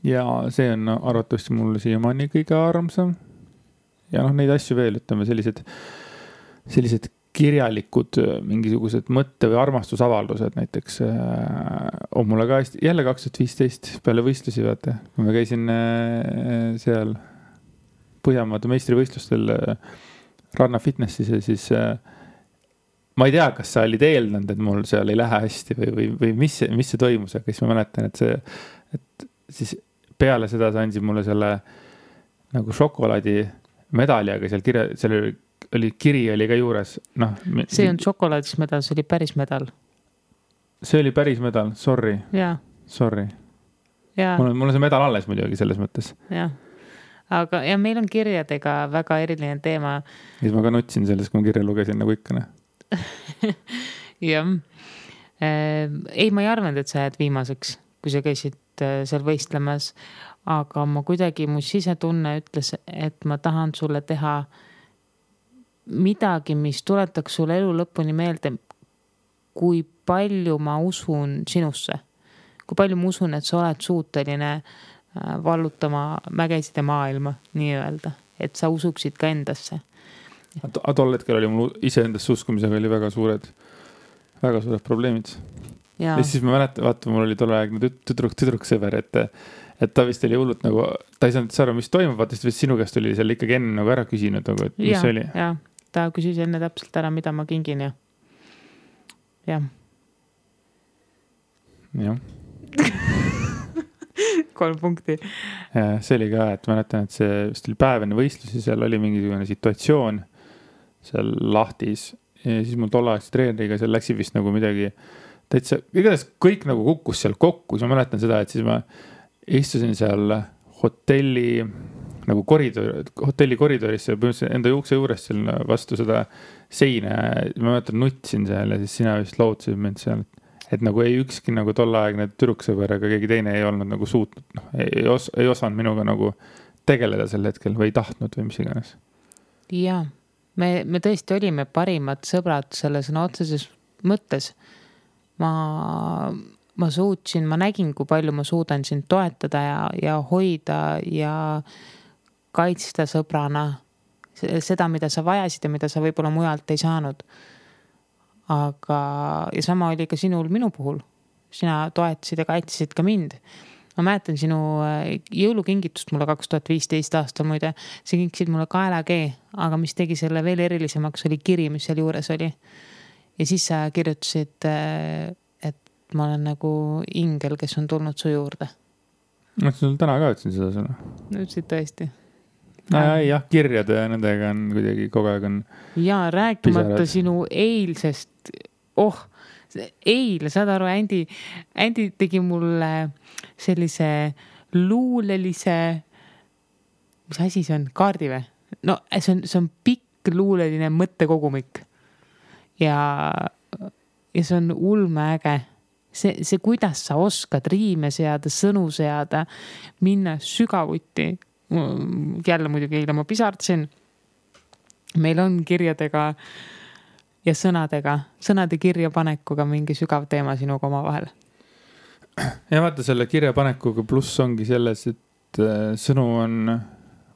Ja see on arvatavasti mulle siiamaani kõige armsam. Ja neid asju veel, ütleme, sellised kirjalikud mingisugused mõtte- või armastusavaldused näiteks on mulle ka jälle 2015 peale võistlusi, vaata. Kui ma käisin seal Põhjamaade meistrivõistlustel Ranna Fitnessis ja siis ma ei tea, kas sa olid eeldanud, et mul seal ei lähe hästi või mis see toimus, aga siis ma mäletan, et siis peale seda sa andsid mulle selle nagu šokolaadi medali, aga seal oli kiri oli ka juures. See on šokolaadis medal, see oli päris medal. See oli päris medal, sorry. Jaa. Sorry. Mul on see medal alles muidugi selles mõttes. Jah. Aga ja meil on kirjadega väga eriline teema. Siis ma ka nutsin selles, kui ma kirja lugesin nagu ikkane. Jah. Ei, ma ei arvanud, et sa jääd viimaseks, kui sa käisid seal võistlemas, aga ma kuidagi, mu sisetunne ütles, et ma tahan sulle teha midagi, mis tuletaks sulle elu lõpuni meelde, kui palju ma usun sinusse. Kui palju ma usun, et sa oled suuteline vallutama mägesid ja maailma, nii öelda. Et sa usuksid ka endasse. Tol hetkel oli mul ise endasse uskumisega oli väga suured probleemid. Ja siis ma mäletan, vaata, mul oli tolleaegne tüdruk sõber, et ta vist oli hullult nagu, ta ei saanud aru, mis toimub, vaata, sest sinu käest oli seal ikkagi enne nagu ära küsinud, nagu, et mis oli. Ja, ta küsis enne täpselt ära, mida ma kingin ja. Jah. 3 punkti. Ja, see oli ka, et mäletan, et see vist oli päev enne võistlusi, seal oli mingisugune situatsioon seal lahtis ja siis mul tollaagse treeneriga seal läksi vist nagu midagi täitsa, igatahes kõik nagu kukkus seal kokku, siis ma mäletan seda, et siis ma istusin seal hotelli nagu hotelli koridorisse, põhimõtteliselt enda ukse juurest seal vastu seda seina. Ma mäletan, nutsin seal ja siis sina vist lootsid mind seal, et nagu ei ükski nagu tolleaegne tüdruksõber ega keegi teine ei olnud nagu suutnud, ei osanud minuga nagu tegeleda sel hetkel või ei tahtnud või mis iganes. Jaa, me tõesti olime parimad sõbrad selle sõna otseses mõttes. Ma suutsin, ma nägin, kui palju ma suudan sind toetada ja hoida ja kaitsta sõbrana seda, mida sa vajasid ja mida sa võib-olla mujalt ei saanud. Aga, ja sama oli ka sinul minu puhul. Sina toetasid ja kaitsesid ka mind. Ma mäletan sinu jõulukingitust mulle 2015 aastal muide. See kinkisid mulle kaelakee, aga mis tegi selle veel erilisemaks oli kiri, mis seal juures oli. Ja siis sa kirjutasid, et ma olen nagu ingel, kes on tulnud su juurde. Ma sul täna ka ütlesin seda sõna. Ütlesid tõesti. Jah, kirjade ja nendega on kuidagi kogu aeg on. Ja rääkimata sinu eilsest, eile, saad aru, Andy tegi mulle sellise luulelise, mis asi see on, kaardi või? No see on pikk luuleline mõttekogumik ja see on ulmeäge. See, kuidas sa oskad riime seada, sõnu seada, minna sügavuti. Jälle muidugi eile ma pisardasin. Meil on kirjadega ja sõnade kirjapanekuga mingi sügav teema sinuga oma vahel. Ja vaata selle kirjapanekuga pluss ongi selles, et sõnu on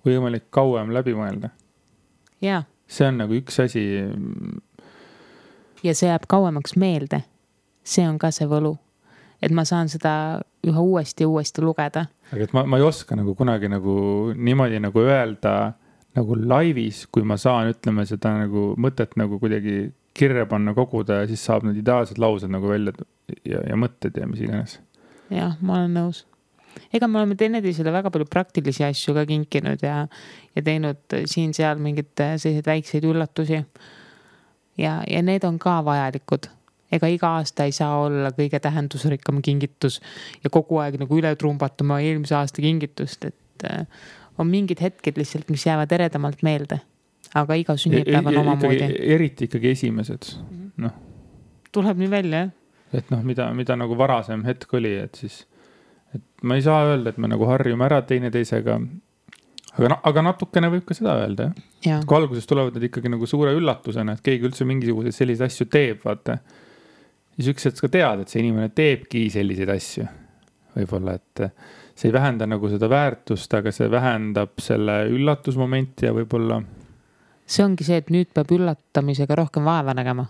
võimalik kauem läbi mõelda. Ja. See on nagu üks asi. Ja see jääb kauemaks meelde. See on ka see võlu. Et ma saan seda üha uuesti lugeda. Aga et ma ei oska nagu kunagi nagu niimoodi nagu öelda nagu laivis, kui ma saan, ütleme seda nagu mõtet nagu kuidagi kirja panna, koguda ja siis saab need ideaalsed laused nagu välja ja mõtted ja mis iganes. Jah, ma olen nõus. Ega me oleme teineteisele väga palju praktilisi asju ka kinkinud ja teinud siin-seal mingid sellised väikseid üllatusi. Ja need on ka vajalikud. Ega iga aasta ei saa olla kõige tähendusrikkam kingitus ja kogu aeg nagu üle trumbatama eelmise aasta kingitust, et on mingid hetked lihtsalt, mis jäävad eredamalt meelde. Aga iga sünnipäev on omamoodi. Eriti ikkagi esimesed. No. Tuleb nii välja, jah? Et mida nagu varasem hetk oli, et siis et ma ei saa öelda, et me nagu harjume ära teineteisega, aga natukene võib ka seda öelda, jah? Kui alguses tulevad need ikkagi nagu suure üllatusena, et keegi üldse mingisuguseid selliseid asju teeb, vaata. Siis üks hetk ka tead, et see inimene teebki selliseid asju. Võib-olla, et see ei vähenda nagu seda väärtust, aga see vähendab selle üllatusmomenti ja võib-olla. See ongi see, et nüüd peab üllatamisega rohkem vaeva nägema.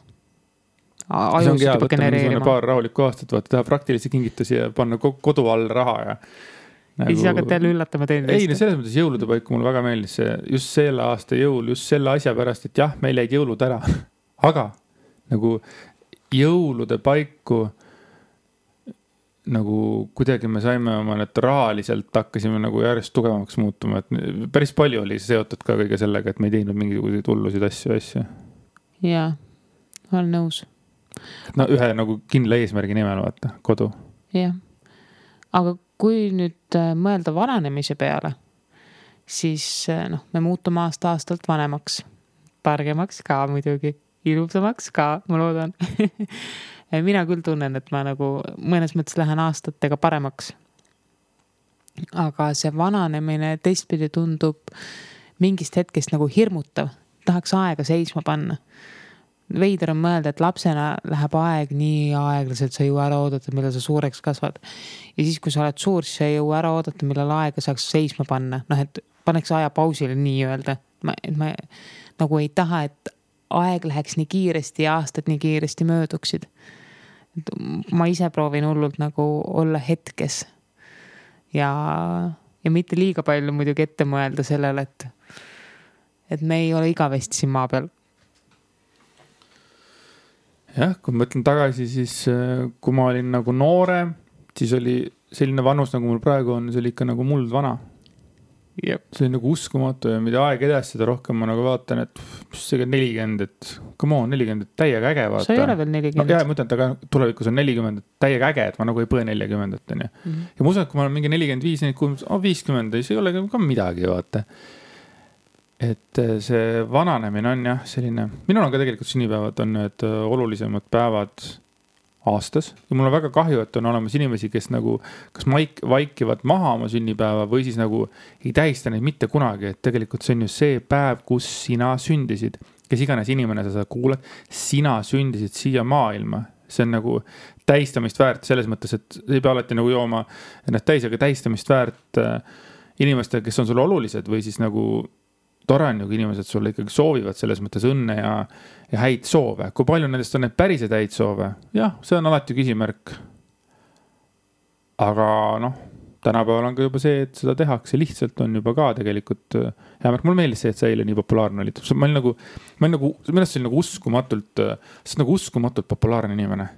See ongi hea, võtta paar rahulikku aastat, vaata, teha praktilisi kingitusi ja panna kodu all raha ja nagu. Ja siis hakkad jälle üllatama teine. Ei, selles mõttes jõulude paiku mulle väga meeldis see, just selle aasta jõul, just selle asja pärast, et jah, meil jäid jõulud ära. Aga nagu jõulude paiku nagu kuidagi me saime oma need rahaliselt hakkasime nagu järjest tugevamaks muutuma, et päris palju oli seotud ka kõige sellega, et me ei teinud mingisuguseid hullusid asju. Jaa, olen nõus. No ühe nagu kindla eesmärgi nimel vaata, kodu. Jah, aga kui nüüd mõelda vananemise peale, siis me muutume aastalt vanemaks, targemaks ka muidugi, ilusamaks ka, ma loodan. Mina küll tunnen, et ma nagu mõnes mõttes lähen aastatega paremaks. Aga see vananemine teistpidi tundub mingist hetkest nagu hirmutav. Tahaks aega seisma panna. Veider on mõelda, et lapsena läheb aeg nii aeglaselt, sa ei jõua ära oodata, millal sa suureks kasvad. Ja siis, kui sa oled suur, siis sa ei jõua ära oodata, millal aega saaks seisma panna. Et paneks aja pausile nii öelda. Ma nagu ei taha, et aeg läheks nii kiiresti ja aastad nii kiiresti mööduksid. Ma ise proovin hullult nagu olla hetkes ja mitte liiga palju muidugi ette mõelda sellele, et me ei ole igavesti siin maa peal. Jah, kui mõtlen tagasi, siis kui ma olin nagu noore, siis oli selline vanus, nagu mul praegu on, see oli ikka nagu muld vana. see on nagu uskumatu ja mida aeg edasi, seda rohkem ma nagu vaatan, et mis see 40, et come on, 40, täiega äge vaata. sa ei ole veel 40. No, ma ütlen, et aga tulevikus on 40, täiega äge, et ma nagu ei põe 40, on ju. Ja ma usun, et kui ma olen mingi 45, 50, see ei ole ka midagi, vaata. Et see vananemine on jah selline, minul on ka tegelikult sünnipäevad on need olulisemad päevad aastas ja mul on väga kahju, et on olemas inimesi, kes nagu kas vaikivad maha oma sünnipäeva või siis nagu ei tähista neid mitte kunagi, et tegelikult see on ju see päev, kus sina sündisid, kes iganes inimene sa kuuled, sina sündisid siia maailma, see on nagu tähistamist väärt selles mõttes, et ei pea alati nagu jooma ennast täis, aga tähistamist väärt inimestele, kes on sulle olulised või siis nagu tore on ju, kui inimesed sulle ikkagi soovivad selles mõttes õnne ja häid soove. Kui palju nendest on need päriselt häid soove? Jah, see on alati küsimärk. Aga noh, tänapäeval on ka juba see, et seda tehakse lihtsalt on juba ka tegelikult hea märk. Mulle meeldis see, et see eile nii populaarne oli. Ma olin nagu millest see oli nagu uskumatult populaarne inimene.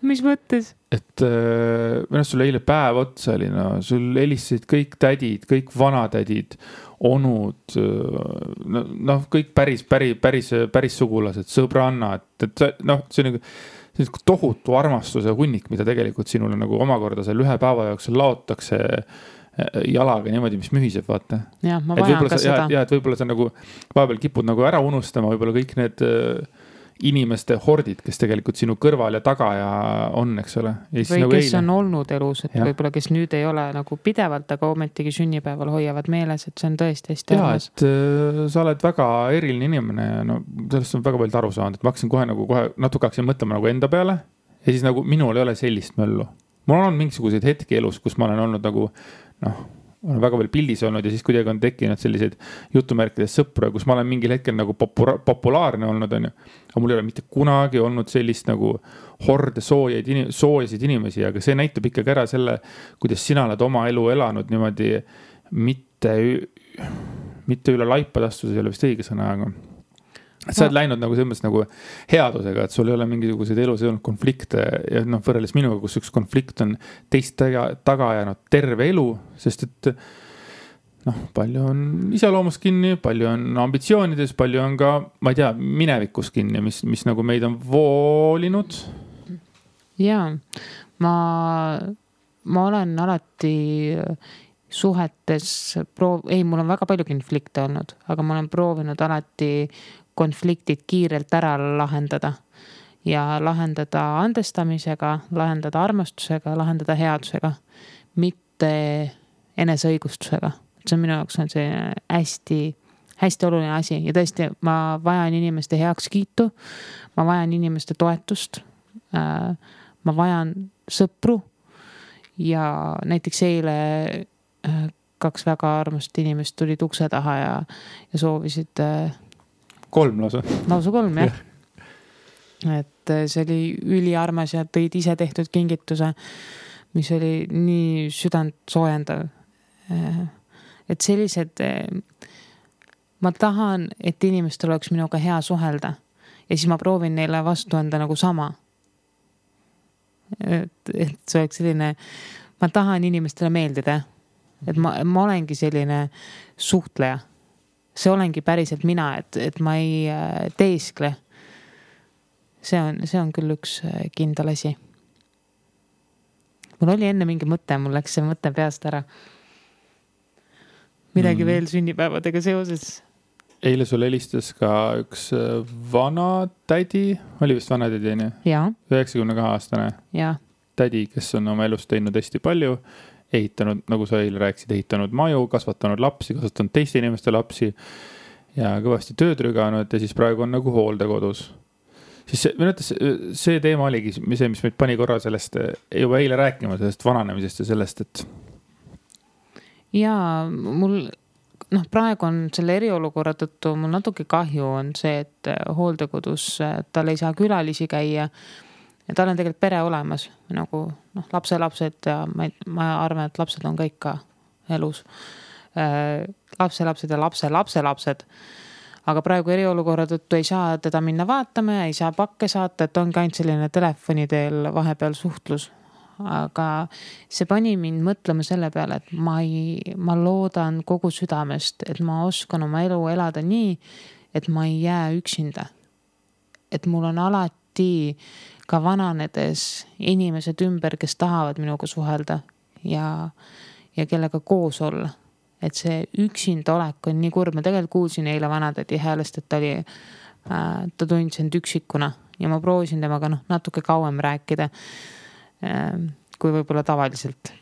Mis mõttes? Et millest sulle eile päev otsa oli, no sul helistasid kõik tädid, kõik vanatädid, onud, noh, kõik päris sugulased, sõbrannad, et noh, see on nagu tohutu armastuse hunnik, mida tegelikult sinule nagu omakorda seal ühe päeva jooksul laotakse jalaga niimoodi, mis mühiseb, vaata. Jah, ma vajan ka seda. Ja, et võib-olla sa nagu vahepeal kipud nagu ära unustama, võib-olla kõik need inimeste hordid, kes tegelikult sinu kõrval ja taga ja on, eks ole. Ja või nagu kes on olnud elus, et võib-olla kes nüüd ei ole nagu pidevalt, aga ometigi sünnipäeval hoiavad meeles, et see on tõesti hästi armas. Ja, et sa oled väga eriline inimene ja no, sellest on väga palju aru saanud, et ma hakkasin kohe natuke hakkasin mõtlema nagu enda peale ja siis nagu minul ei ole sellist möllu. Mul on mingisuguseid hetki elus, kus ma olen olnud nagu, noh, olen väga veel pildis olnud ja siis kuidagi on tekkinud selliseid jutumärkides sõpru, kus ma olen mingil hetkel nagu populaarne olnud, on ju. Aga mul ei ole mitte kunagi olnud sellist nagu horde soojasid inimesi, aga see näitab ikkagi ära selle, kuidas sina oled oma elu elanud niimoodi mitte üle laipadastus, ei ole vist õige sõna, aga sa oled läinud nagu selles nagu headusega, et sul ei ole mingisuguseid elus ei olnud konflikte ja noh, võrreldes minuga, kus üks konflikt on teist taga jäänud terve elu, sest et noh, palju on iseloomus kinni, palju on ambitsioonides, palju on ka, ma ei tea, minevikus kinni, mis nagu meid on voolinud. Jaa, ma olen alati suhetes mul on väga palju konflikte olnud, aga ma olen proovinud alati konfliktid kiirelt ära lahendada ja lahendada andestamisega, lahendada armastusega, lahendada headusega, mitte eneseõigustusega. See on minu jaoks on see hästi, hästi oluline asi ja tõesti, ma vajan inimeste heakskiitu, ma vajan inimeste toetust, ma vajan sõpru ja näiteks eile 2 väga armast inimest tulid ukse taha ja soovisid 3 lausa. Lausa 3, jah. Et see oli üliarmas ja tõid ise tehtud kingituse, mis oli nii südant soojendav. Et sellised, ma tahan, et inimestel oleks minuga hea suhelda ja siis ma proovin neile vastu anda nagu sama. Et see oleks selline, ma tahan inimestele meeldida, et ma olengi selline suhtleja. See olengi päriselt mina, et ma ei teeskle. See on küll üks kindel asi. Mul oli enne mingi mõte, mul läks see mõte peast ära. Midagi veel sünnipäevadega seoses. Eile sul helistas ka üks vana tädi, oli vist vana tädi, nii? Jaa. 92-aastane Jaa. Tädi, kes on oma elus teinud hästi palju, ehitanud, nagu sa eile rääkisid, ehitanud maju, kasvatanud lapsi, kasvatanud teiste inimeste lapsi ja kõvasti tööd rüganud ja siis praegu on nagu hooldekodus. Siis see teema oligi see, mis meid pani korra sellest juba eile rääkima, sellest vananemisest ja sellest, et jaa, mul praegu on selle eriolukorra tõttu mul natuke kahju on see, et hooldekodus tal ei saa külalisi käia ja tal on tegelikult pere olemas, nagu lapselapsed ja ma arvan, et lapsed on kõik ka elus. Lapselapsed ja lapselapsed. Aga praegu eriolukorra tõttu ei saa teda minna vaatama ja ei saa pakke saata, et ongi ainult selline telefoni teel vahepeal suhtlus. aga see pani mind mõtlema selle peale, et ma loodan kogu südamest, et ma oskan oma elu elada nii, et ma ei jää üksinda. Et mul on alati ka vananedes inimesed ümber, kes tahavad minuga suhelda ja kellega koos olla. Et see üksinda olek on nii kurb. Ma tegelikult kuulsin eile vanatädi häälest, et ta tundis end üksikuna ja ma proovisin temaga natuke kauem rääkida kui võib-olla tavaliselt.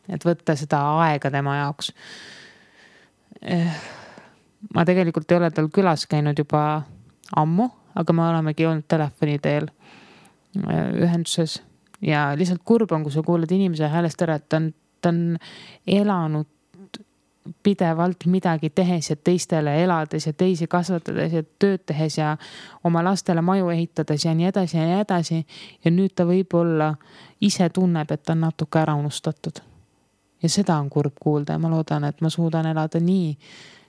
Et võtta seda aega tema jaoks. Ma tegelikult ei ole tal külas käinud juba ammu, aga me olemegi olnud telefoni teel ühenduses ja lihtsalt kurb on, kui sa kuuled inimese häälest ära, et ta on elanud pidevalt midagi tehes ja teistele elades ja teisi kasvatades ja tööd tehes ja oma lastele maju ehitades ja nii edasi ja nii edasi. Ja nüüd ta võib-olla ise tunneb, et ta on natuke ära unustatud. Ja seda on kurb kuulda ja ma loodan, et ma suudan elada nii,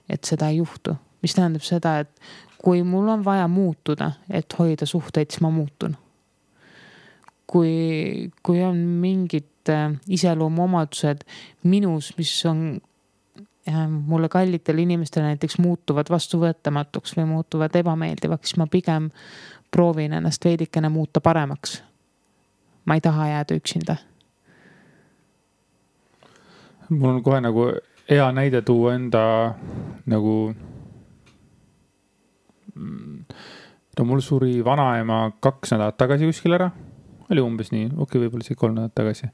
et seda ei juhtu. Mis tähendab seda, et kui mul on vaja muutuda, et hoida suhteid, siis ma muutun. Kui on mingid iseloomuomadused minus, mis on mulle kallitel inimestele näiteks muutuvad vastuvõetamatuks või muutuvad ebameeldivaks, siis ma pigem proovin ennast veidikene muuta paremaks. Ma ei taha jääda üksinda. Mul on kohe nagu hea näide tuua enda nagu mul suri vanaema 2 nädalat tagasi kuskil ära. Oli umbes nii, võib-olla see 3 nädalat tagasi.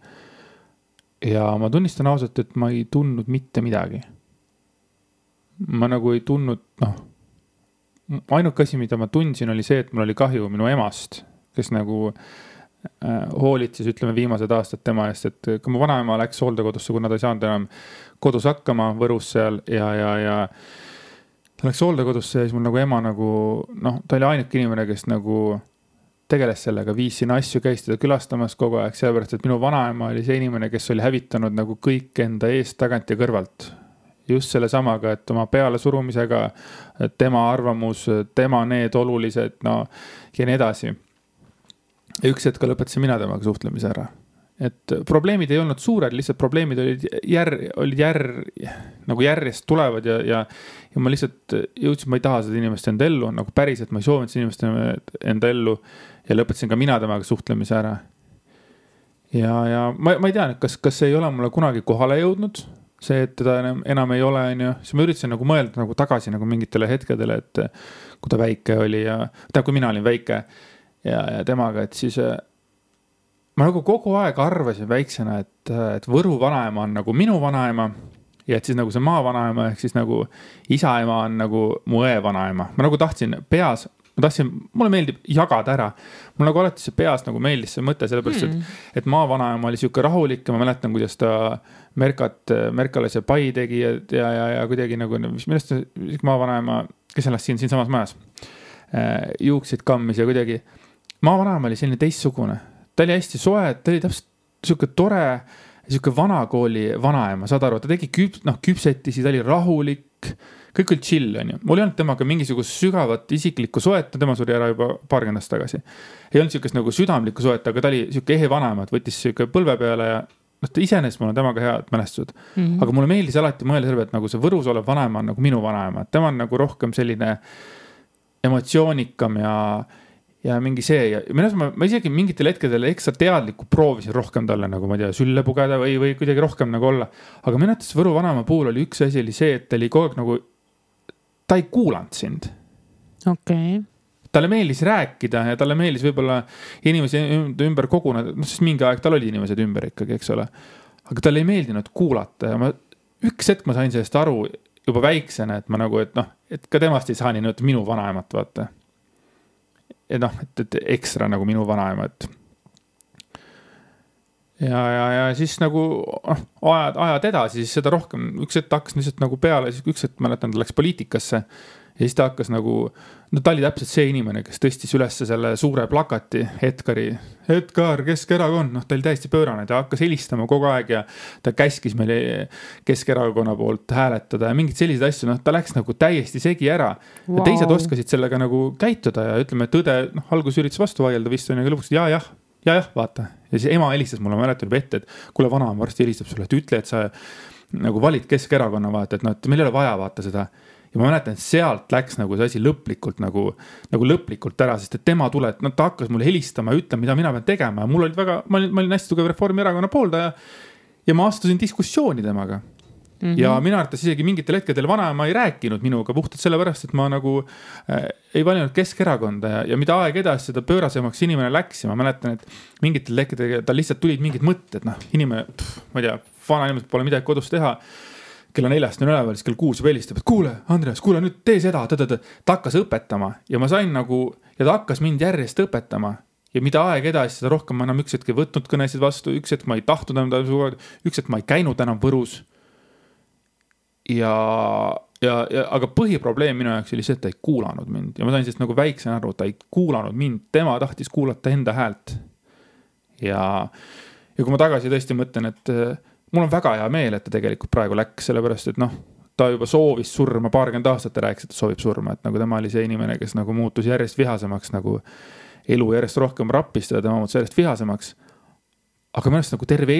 Ja ma tunnistan ausalt, et ma ei tundnud mitte midagi. Ma nagu ei tundnud, ainuke asi, mida ma tundsin, oli see, et mul oli kahju minu emast, kes nagu hoolitses, ütleme, viimased aastad tema eest, et kui mu vanaema läks hooldekodusse, kuna ta ei saanud enam kodus hakkama Võrus seal ja ta läks hooldekodusse ja siis mul nagu ema nagu, ta oli ainuke inimene, kes nagu tegeles sellega, viis sinna asju, käis teda külastamas kogu aeg, sellepärast, et minu vanaema oli see inimene, kes oli hävitanud nagu kõik enda eest, tagant ja kõrvalt. Just selle samaga, et oma peale surumisega, tema arvamus, tema need olulised, ja nii edasi. Ja üks hetk lõpetasin mina temaga suhtlemise ära. Et probleemid ei olnud suured, lihtsalt probleemid olid nagu järjest tulevad ja ma lihtsalt jõudsin, ma ei taha seda inimest enda ellu, nagu päriselt ma ei soovinud seda inimest enda ellu ja lõpetasin ka mina temaga suhtlemise ära. Ja ma ei tea, kas ei ole mulle kunagi kohale jõudnud, see, et teda enam ei ole, siis ma üritasin nagu mõelda nagu tagasi nagu mingitele hetkedele, et kui ta väike oli kui mina olin väike ja temaga, et siis ma nagu kogu aeg arvasin väiksena, et Võru vanaema on nagu minu vanaema ja et siis nagu see maa vanaema ehk siis nagu isaema on nagu mu õe vanaema. Ma nagu tahtsin peas, mulle meeldib jagada ära. Mul nagu alati see peas nagu meeldis see mõte, sellepärast, et maa vanaema oli siuke rahulik ja ma mäletan, kuidas ta Merkale see pai tegi ja kuidagi nagu, millest maa vanaema, kes elas siin samas majas, juuksid kammis ja kuidagi maa vanaema oli selline teistsugune. Ta oli hästi soe, ta oli täpselt siuke tore, siuke vanakooli vanaema, saad aru, ta tegi küpsetisi, ta oli rahulik, kõik oli chill, on ju. Mul ei olnud temaga mingisugust sügavat isiklikku soet, tema suri ära juba paarkümmend aastat tagasi. Ei olnud siukest nagu südamlikku soet, aga ta oli siuke ehe vanaema, et võttis siuke põlve peale ja ta iseenesest mul on temaga head mälestused. Aga mulle meeldis alati mõelda selle, et nagu see Võrus olev vanaema on nagu minu vanaema, et tema on nagu rohkem selline emotsioonikam ja mingi see ja ma isegi mingitel hetkedel ekstra teadlikku proovisin rohkem talle nagu, ma ei tea, sülle pugeda või kuidagi rohkem nagu olla. Aga minu arvates Võru vanaema puhul oli üks asi oli see, et ta oli kogu aeg nagu, ta ei kuulanud sind. Okay. Talle meeldis rääkida ja talle meeldis võib-olla inimesi ümber koguneda, sest mingi aeg tal oli inimesed ümber ikkagi, eks ole. Aga talle ei meeldinud kuulata ja üks hetk ma sain sellest aru juba väiksena, et ma nagu, et ka temast ei saa nii minu vanaemat vaata. Et ekstra nagu minu vanaema, et ja siis nagu ajad edasi, siis seda rohkem, üks hetk hakkas lihtsalt nagu peale, siis üks hetk mäletan, ta läks poliitikasse ja siis ta hakkas nagu, ta oli täpselt see inimene, kes tõstis üles selle suure plakati Edgar, Keskerakond, ta oli täiesti pöörane, ta hakkas helistama kogu aeg ja ta käskis meile Keskerakonna poolt hääletada ja mingid sellised asju, ta läks nagu täiesti segi ära. Wow. Ja teised oskasid sellega nagu käituda ja ütleme, et tõde, algus üritas vastu vaielda vist on ja lõpuks, jah, jah, vaata. Ja siis ema helistas mulle, ma mäletan juba ette, et kuule, vanaema varsti helistab sulle, et ütle, et sa nagu valid Keskerakonna, vaata, et noh, et meil ei ole vaja vaata seda. Ja ma mäletan, et sealt läks nagu see asi lõplikult nagu lõplikult ära, sest et tema tuleb, ta hakkas mulle helistama ja ütlema, mida mina pean tegema. Ja mul olid väga, ma olin hästi tugev Reformierakonna pooldaja ja ma astusin diskussiooni temaga. Ja minu arvates isegi mingitel hetkedel vanaema ei rääkinud minuga puhtalt sellepärast, et ma nagu ei valinud Keskerakonda ja mida aeg edasi seda pöörasemaks inimene läks ja ma mäletan, et mingitel hetkedel tal lihtsalt tulid mingid mõtted, noh, inimene, ma ei tea, vana inimesed pole midagi kodus teha. Kella 4 on üleval, siis kell 6 helistab, et kuule, Andreas, kuule nüüd tee seda, ta hakkas õpetama ja ma sain nagu, ja ta hakkas mind järjest õpetama ja mida aeg edasi, seda rohkem ma enam üks hetk ei võtnud kõnesid vastu, üks hetk ma ei tahtnud enam, üks hetk ma ei käinud enam Võrus. Aga põhiprobleem minu jaoks oli see, et ta ei kuulanud mind ja ma sain sellest nagu väiksena aru, ta ei kuulanud mind, tema tahtis kuulata enda häält. Ja kui ma tagasi tõesti mõtlen, et mul on väga hea meel, et ta tegelikult praegu läks, sellepärast, et noh, ta juba soovis surma 20 aastat, ta rääkis, et ta soovib surma, et nagu tema oli see inimene, kes nagu muutus järjest vihasemaks, nagu elu järjest rohkem rappistada, tema muutus järjest vihasemaks. Aga minu arust nagu terve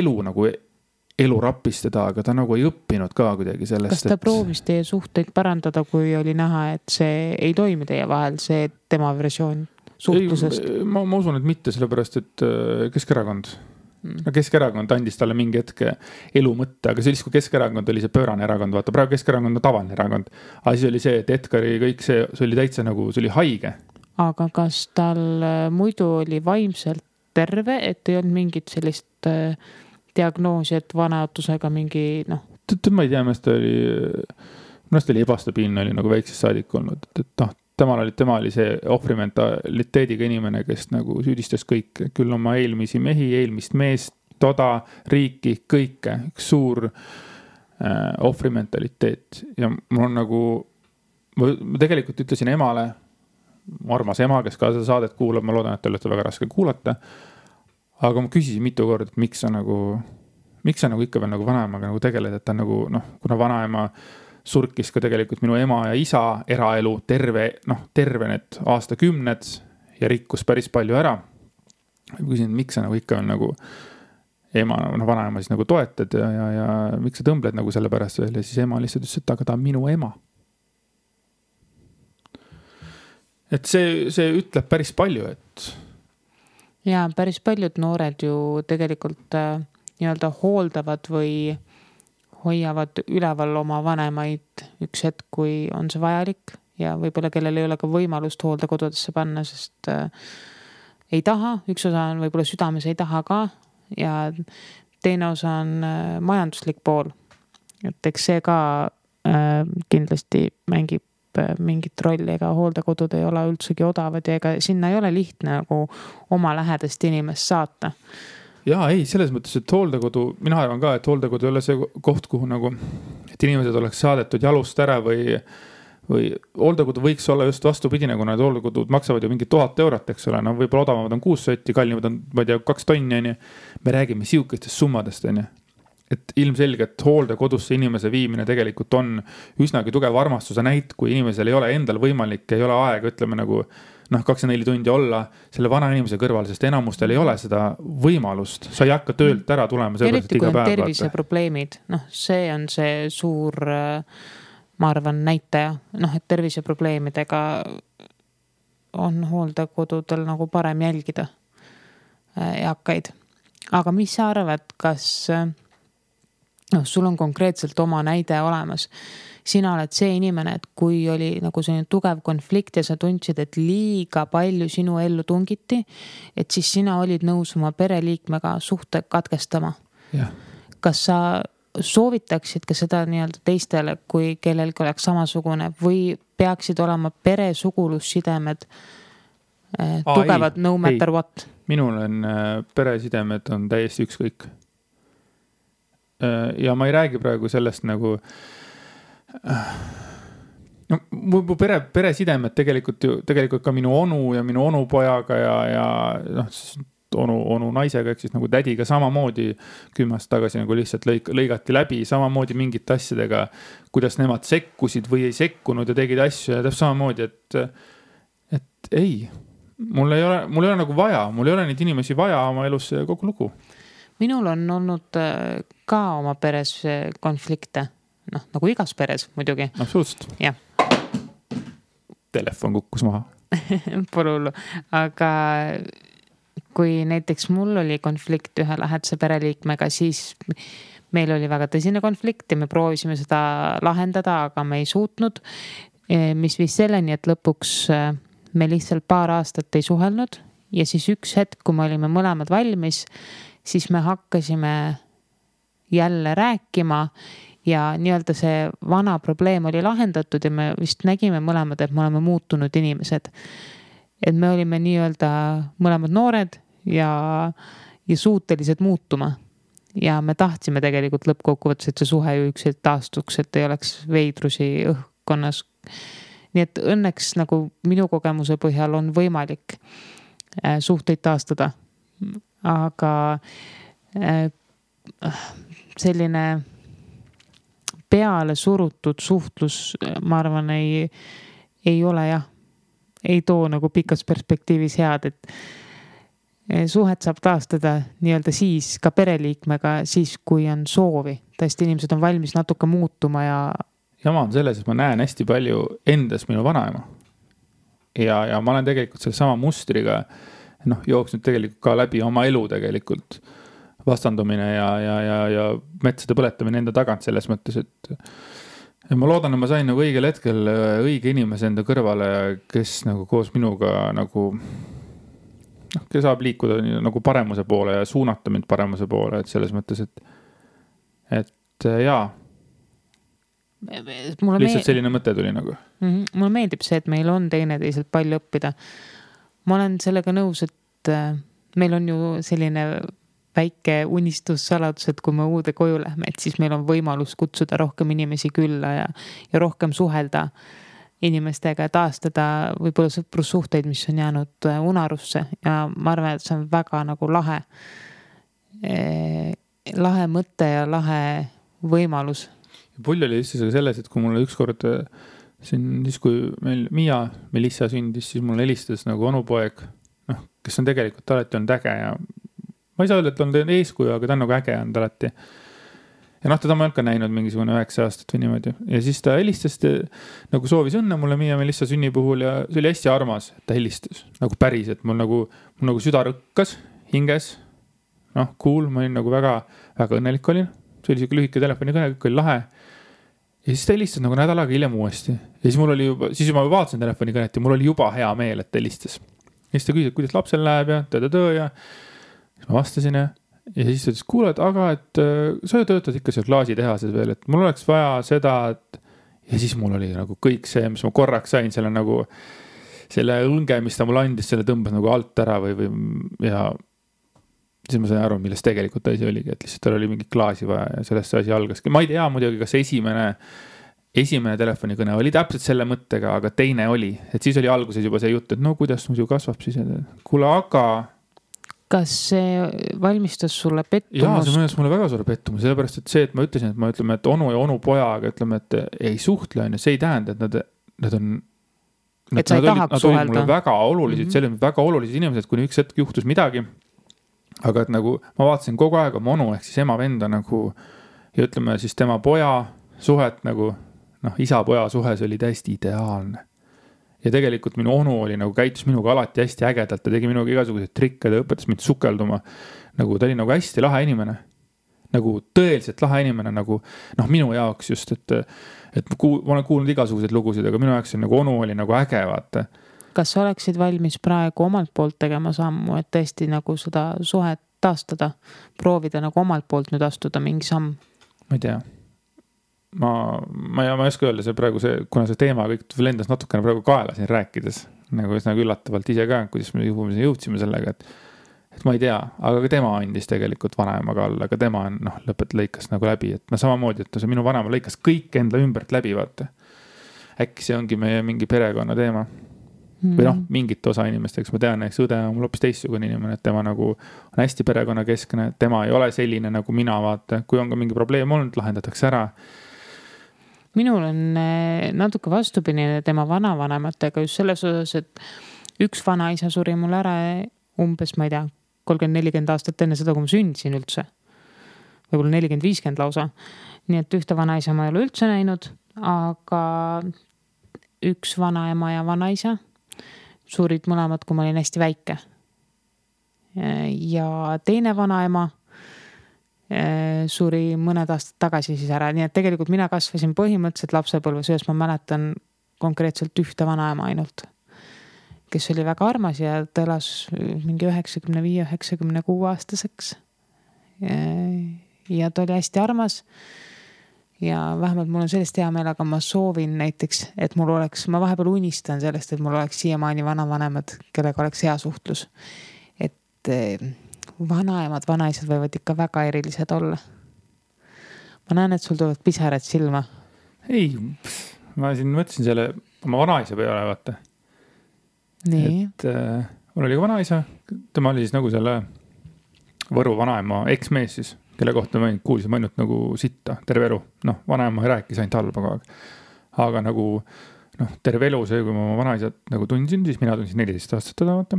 elu rappistada, aga ta nagu ei õppinud ka kuidagi sellest. Kas ta proovis teie suhteid parandada, kui oli näha, et see ei toimi teie vahel, see tema versioon suhtlusest? Ma usun, et mitte, sellepärast, et Keskerakond. No Keskerakond andis talle mingi hetke elu mõtte, aga siis kui Keskerakond oli see pöörane erakond, vaata praegu Keskerakond on tavaline erakond, aga siis oli see, et Edgari kõik see oli täitsa nagu, see oli haige. Aga kas tal muidu oli vaimselt terve, et ei olnud mingit sellist diagnoosi, et vanaotusega mingi, noh? Ma ei tea, mest oli ebastabiilne, oli nagu väiksest saadik olnud, et tema oli see ohvrimentaliteediga inimene, kes nagu süüdistas kõike, küll oma eelmisi mehi, eelmist meest, toda, riiki, kõike, üks suur ohvrimentaliteet. Ja mul on nagu, ma tegelikult ütlesin emale, armas ema, kes ka seda saadet kuulab, ma loodan, et te olete väga raske kuulata, aga ma küsisin mitu korda, et miks sa nagu ikka veel nagu vanaemaga nagu tegeled, et ta nagu, noh, kuna vanaema surkis ka tegelikult minu ema ja isa eraelu terve need aastakümned ja rikkus päris palju ära. Ma küsin, miks sa nagu ikka on nagu ema, vanaema siis nagu toetad ja miks sa tõmbled nagu selle pärast veel ja siis ema lihtsalt ütles, et aga ta on minu ema. Et see ütleb päris palju, et... Ja päris paljud noored ju tegelikult nii-öelda hooldavad või hoiavad üleval oma vanemaid üks hetk, kui on see vajalik ja võib-olla kellel ei ole ka võimalust hooldekodudesse panna, sest ei taha, üks osa on võib-olla südames ei taha ka ja teine osa on majanduslik pool. Et eks see ka kindlasti mängib mingit rolli, ega hooldekodud ei ole üldsegi odavad ja ega sinna ei ole lihtne nagu oma lähedast inimest saata. Jaa, ei, selles mõttes, et hooldekodu, mina arvan ka, et hooldekodu ei ole see koht, kuhu nagu, et inimesed oleks saadetud jalust ära või hooldekodu võiks olla just vastupidine, kuna need hooldekodud maksavad ju mingi 1000 eurot, eks ole, no võib-olla odavamad on 6 sotti, kallimad on, ma ei tea, 2 tonni, me räägime siukestest summadest, et ilmselgelt hooldekodusse inimese viimine tegelikult on üsnagi tugev armastuse näit, kui inimesel ei ole endal võimalik, ei ole aega, ütleme nagu 24 tundi olla selle vana inimese kõrval, sest enamustel ei ole seda võimalust. Sa ei hakka töölt ära tulema. Eriti kui on terviseprobleemid, see on see suur, ma arvan, näitaja, et terviseprobleemidega on hooldekodudel nagu parem jälgida eakaid. Aga mis sa arvad, kas sul on konkreetselt oma näide olemas? Sina oled see inimene, et kui oli nagu selline tugev konflikt ja sa tundsid, et liiga palju sinu ellu tungiti, et siis sina olid nõus oma pereliikmega suhte katkestama. Ja. Kas sa soovitaksid ka seda nii-öelda teistele, kui kellelgi oleks samasugune või peaksid olema peresugulussidemed tugevad no matter what? Minul on peresidemed on täiesti ükskõik. Ja ma ei räägi praegu sellest nagu mu peresidemed tegelikult ka minu onu ja minu onupojaga ja onu naisega, ehk siis nagu tädiga samamoodi 10 aastat tagasi nagu lihtsalt lõigati läbi, samamoodi mingite asjadega, kuidas nemad sekkusid või ei sekkunud ja tegid asju ja täpselt samamoodi, et ei, mul ei ole nagu vaja, mul ei ole neid inimesi vaja oma elus kogu lugu. Minul on olnud ka oma peres konflikte, noh nagu igas peres muidugi. Absoluutselt. Jah. Telefon kukkus maha. Pole hullu, aga kui näiteks mul oli konflikt ühe lähedase pereliikmega, siis meil oli väga tõsine konflikt ja me proovisime seda lahendada, aga me ei suutnud, mis viis selleni, et lõpuks me lihtsalt paar aastat ei suhelnud ja siis üks hetk, kui me olime mõlemad valmis, siis me hakkasime jälle rääkima ja nii-öelda see vana probleem oli lahendatud ja me vist nägime mõlemad, et me oleme muutunud inimesed. Et me olime nii-öelda mõlemad noored ja suutelised muutuma. Ja me tahtsime tegelikult lõppkokkuvõttes, et see suhe ju ükselt taastuks, et ei oleks veidrusi õhkkonnas. Nii et õnneks nagu minu kogemuse põhjal on võimalik suhteid taastada. Aga selline peale surutud suhtlus, ma arvan, ei ole jah, ei too nagu pikas perspektiivis head, et suhet saab taastada nii-öelda siis ka pereliikmega, siis kui on soovi. Tõesti, inimesed on valmis natuke muutuma ja jama on selles, et ma näen hästi palju endas minu vanaema. Ja ma olen tegelikult selle sama mustriga jooksnud tegelikult ka läbi oma elu tegelikult vastandumine ja metsade põletamine enda tagant selles mõttes, et ma loodan, et ma sain nagu õigel hetkel õige inimese enda kõrvale, kes nagu koos minuga nagu kes saab liikuda nagu paremuse poole ja suunata mind paremuse poole, et selles mõttes, et jaa, lihtsalt selline mõte tuli nagu. Mulle meeldib see, et meil on teineteiselt palju õppida. Ma olen sellega nõus, et meil on ju selline väike unistussaladus, et kui me uude koju lähme, et siis meil on võimalus kutsuda rohkem inimesi külla ja rohkem suhelda inimestega ja taastada võib-olla sõprussuhteid, mis on jäänud unarusse ja ma arvan, et see on väga nagu lahe mõte ja lahe võimalus. Pull oli lihtsalt selles, et kui mulle ükskord siis kui meil Melissa sündis, siis mulle helistas nagu onupoeg, kes on tegelikult alati olnud äge ja ma ei saa öelda, et on eeskuju, aga ta on nagu äge olnud alati. Ja teda ma olen ka näinud mingisugune 9 aastat või niimoodi. Ja siis ta helistas, nagu soovis õnne mulle Melissa sünni puhul ja see oli hästi armas, et ta helistas. Nagu päris, et mul nagu süda rõkkas hinges. Cool, ma olin nagu väga, väga õnnelik olin. See oli siuke lühike telefonikõne, kõik oli lahe. Ja siis ta helistas nagu nädal aega hiljem uuesti. Ja siis mul oli juba, siis ma vaatasin telefonikõnet ja mul oli juba hea meel, et ta helistas. Ja siis ta küsis, kuidas lapsel läheb ja ja siis ma vastasin ja siis ta ütles, kuule, aga et sa ju töötad ikka seal klaasitehases veel, et mul oleks vaja seda, et ja siis mul oli nagu kõik see, mis ma korraks sain, selle õnge, mis ta mulle andis, selle tõmbas nagu alt ära või ja siis ma sain aru, millest tegelikult asi oligi, et lihtsalt tal oli mingi klaasi vaja ja sellest see asi algaski. Ma ei tea muidugi, kas esimene telefonikõne oli täpselt selle mõttega, aga teine oli, et siis oli alguses juba see jutt, et no kuidas muidu kasvab siis, kuule, aga kas see valmistas sulle pettumust? Jaa, see mõnes mulle väga suure pettumust, sellepärast, et see, et ma ütlesin, et onu ja onu pojaga, ütleme, et ei suhtle, see ei tähenda, et nad on et sa ei tahaks suhelda. Mulle väga olulised, see oli väga olulised inimesed, kuni üks hetk juhtus midagi. Aga et nagu ma vaatasin kogu aeg oma onu ehk siis ema venda nagu ja ütleme siis tema poja suhet nagu isa-poja suhe, see oli täiesti ideaalne. Ja tegelikult minu onu oli nagu käitus minuga alati hästi ägedalt, ta tegi minuga igasuguseid trikke, ta õpetas mind sukelduma. Nagu ta oli nagu hästi lahe inimene. Nagu tõeliselt lahe inimene, nagu minu jaoks just, et ma olen kuulnud igasuguseid lugusid, aga minu jaoks nagu onu oli nagu äge, vaata. Kas sa oleksid valmis praegu omalt poolt tegema sammu, et tõesti nagu seda suhet taastada, proovida nagu omalt poolt nüüd astuda mingi samm? Ma ei tea. Ma ei oska öelda, see praegu kuna see teema kõik lendas natukene praegu kaela siin rääkides, nagu üllatavalt ise ka, kuidas me jõudsime sellega, et ma ei tea, aga ka tema andis tegelikult vanaemaga alla, aga tema on lõikas nagu läbi, et samamoodi, et see minu vanaema lõikas kõik enda ümbert läbi, vaata. Äkki see ongi meie mingi perekonna teema. Või mingit osa inimesteks, ma tean, eks õde on mul hoopis teistsugune inimene, et tema nagu on hästi perekonna keskne, tema ei ole selline nagu mina, vaata, kui on ka mingi probleem olnud, lahendatakse ära. Minul on natuke vastupidine tema vanavanematega just selles osas, et üks vanaisa suri mul ära umbes, ma ei tea, 30-40 aastat enne seda, kui ma sündisin üldse. Võib-olla 40-50 lausa. Nii et ühte vanaisa ma ei ole üldse näinud, aga üks vanaema ja vanaisa surid mõlemad, kui ma olin hästi väike. Ja teine vanaema suri mõned aastad tagasi siis ära. Nii et tegelikult mina kasvasin põhimõtteliselt lapsepõlves, ühes ma mäletan konkreetselt ühte vanaema ainult, kes oli väga armas ja ta elas mingi 95-96 aastaseks. Ja ta oli hästi armas. Ja vähemalt mul on sellest hea meel, aga ma soovin näiteks, et mul oleks, ma vahepeal unistan sellest, et mul oleks siiamaani vanavanemad, kellega oleks hea suhtlus. Et vanaemad, vanaisad võivad ikka väga erilised olla. Ma näen, et sul tulevad pisarad silma. Ei, ma siin mõtlesin selle oma vanaisa peale, vaata. Nii. Et mul oli ka vanaisa, tema oli siis nagu selle Võru vanaema eksmees siis, kelle kohta ma kuulsin ainult nagu sitta terve elu. Vanaema ei rääkis ainult halba kogu aeg. Aga nagu terve elu see, kui ma oma vanaisat nagu tundsin, siis mina tundsin 14 aastat teda, vaata.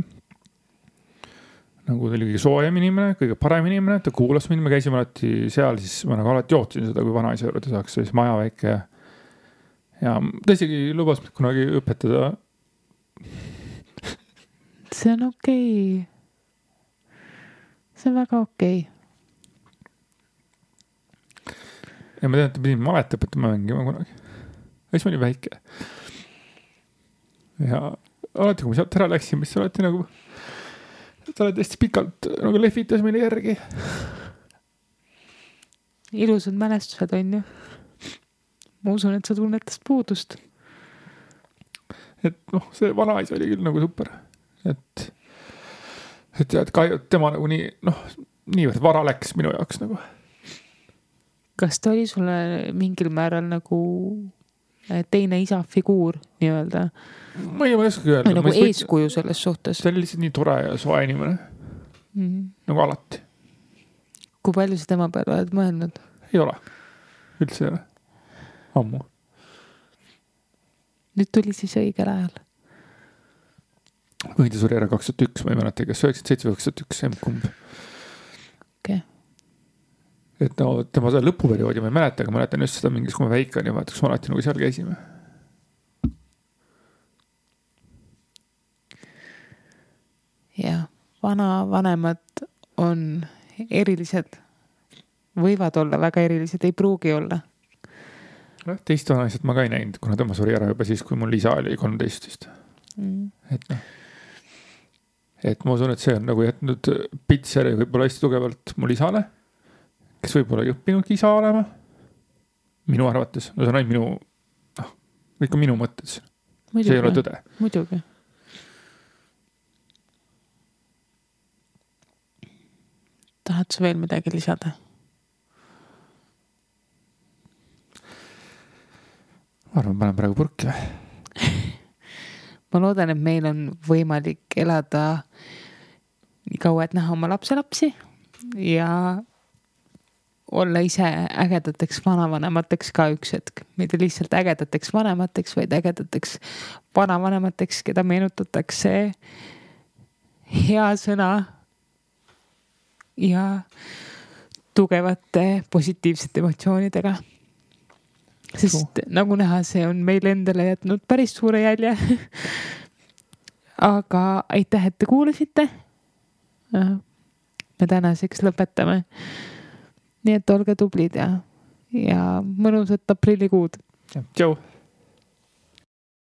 Nagu ta oli kõige soojem inimene, kõige parem inimene, ta kuulas mind, me käisime alati seal, siis ma nagu alati jootsin seda, kui vanaisa juurde saaks, siis maja väike. Ja ta isegi lubas kunagi õpetada. See on okei. See on väga okei. Ja ma tean, et ta pidin malet õpetama mängima kunagi. Ja siis ma olin väike. Ja alati, kui ma sealt ära läksin, mis alati nagu ta oled hästi pikalt nagu lehvitas meile järgi. Ilusad mälestused on ju. Ma usun, et sa tunnetast puudust. Et see vanaisa oli küll nagu super. Et tema nagu niivõrd vara läks minu jaoks nagu. Kas ta oli sulle mingil määral nagu teine isa figuur nii-öelda? Ma ei oska öelda. Nagu eeskuju selles suhtes. Ta oli lihtsalt nii tore ja soe inimene. Nagu alati. Kui palju sa tema peale oled mõelnud? Ei ole. Üldse ei ole. Ammu. Nüüd tuli siis õigel ajal. Võidi suri ära 2001, ma ei mäleta, kas 97 või 2001, kumb. Okay. Et tema seda lõpuperioodi ma ei mäleta, aga mäletan just seda mingis, kui ma väike oli, vaata, kus ma alati nagu seal käisime. Ja, vanemad on erilised, võivad olla väga erilised, ei pruugi olla. Teist vanaisat ma ka ei näinud, kuna tema suri ära juba siis, kui mul isa oli 13. Et ma usun, et see on nagu jätnud pitseri võib-olla hästi tugevalt mul isale, kes võib-olla ei õppinudki isa olema. Minu arvates. See on ainult ikka minu mõtted. See ei ole tõde. Muidugi. Tahad sa veel midagi lisada? Ma arvan, panen praegu purki. Ma loodan, et meil on võimalik elada nii kaua, et näha oma lapselapsi ja olla ise ägedateks vanavanemateks ka üks hetk. Mitte lihtsalt ägedateks vanemateks, vaid ägedateks vanavanemateks, keda meenutatakse hea sõna ja tugevate positiivsete emotsioonidega. Sest nagu näha, see on meil endale jätnud päris suure jälje. Aga aitäh, et te kuulasite. Me tänaseks lõpetame. Nii et olge tublid ja mõnusat aprillikuud. Tšau!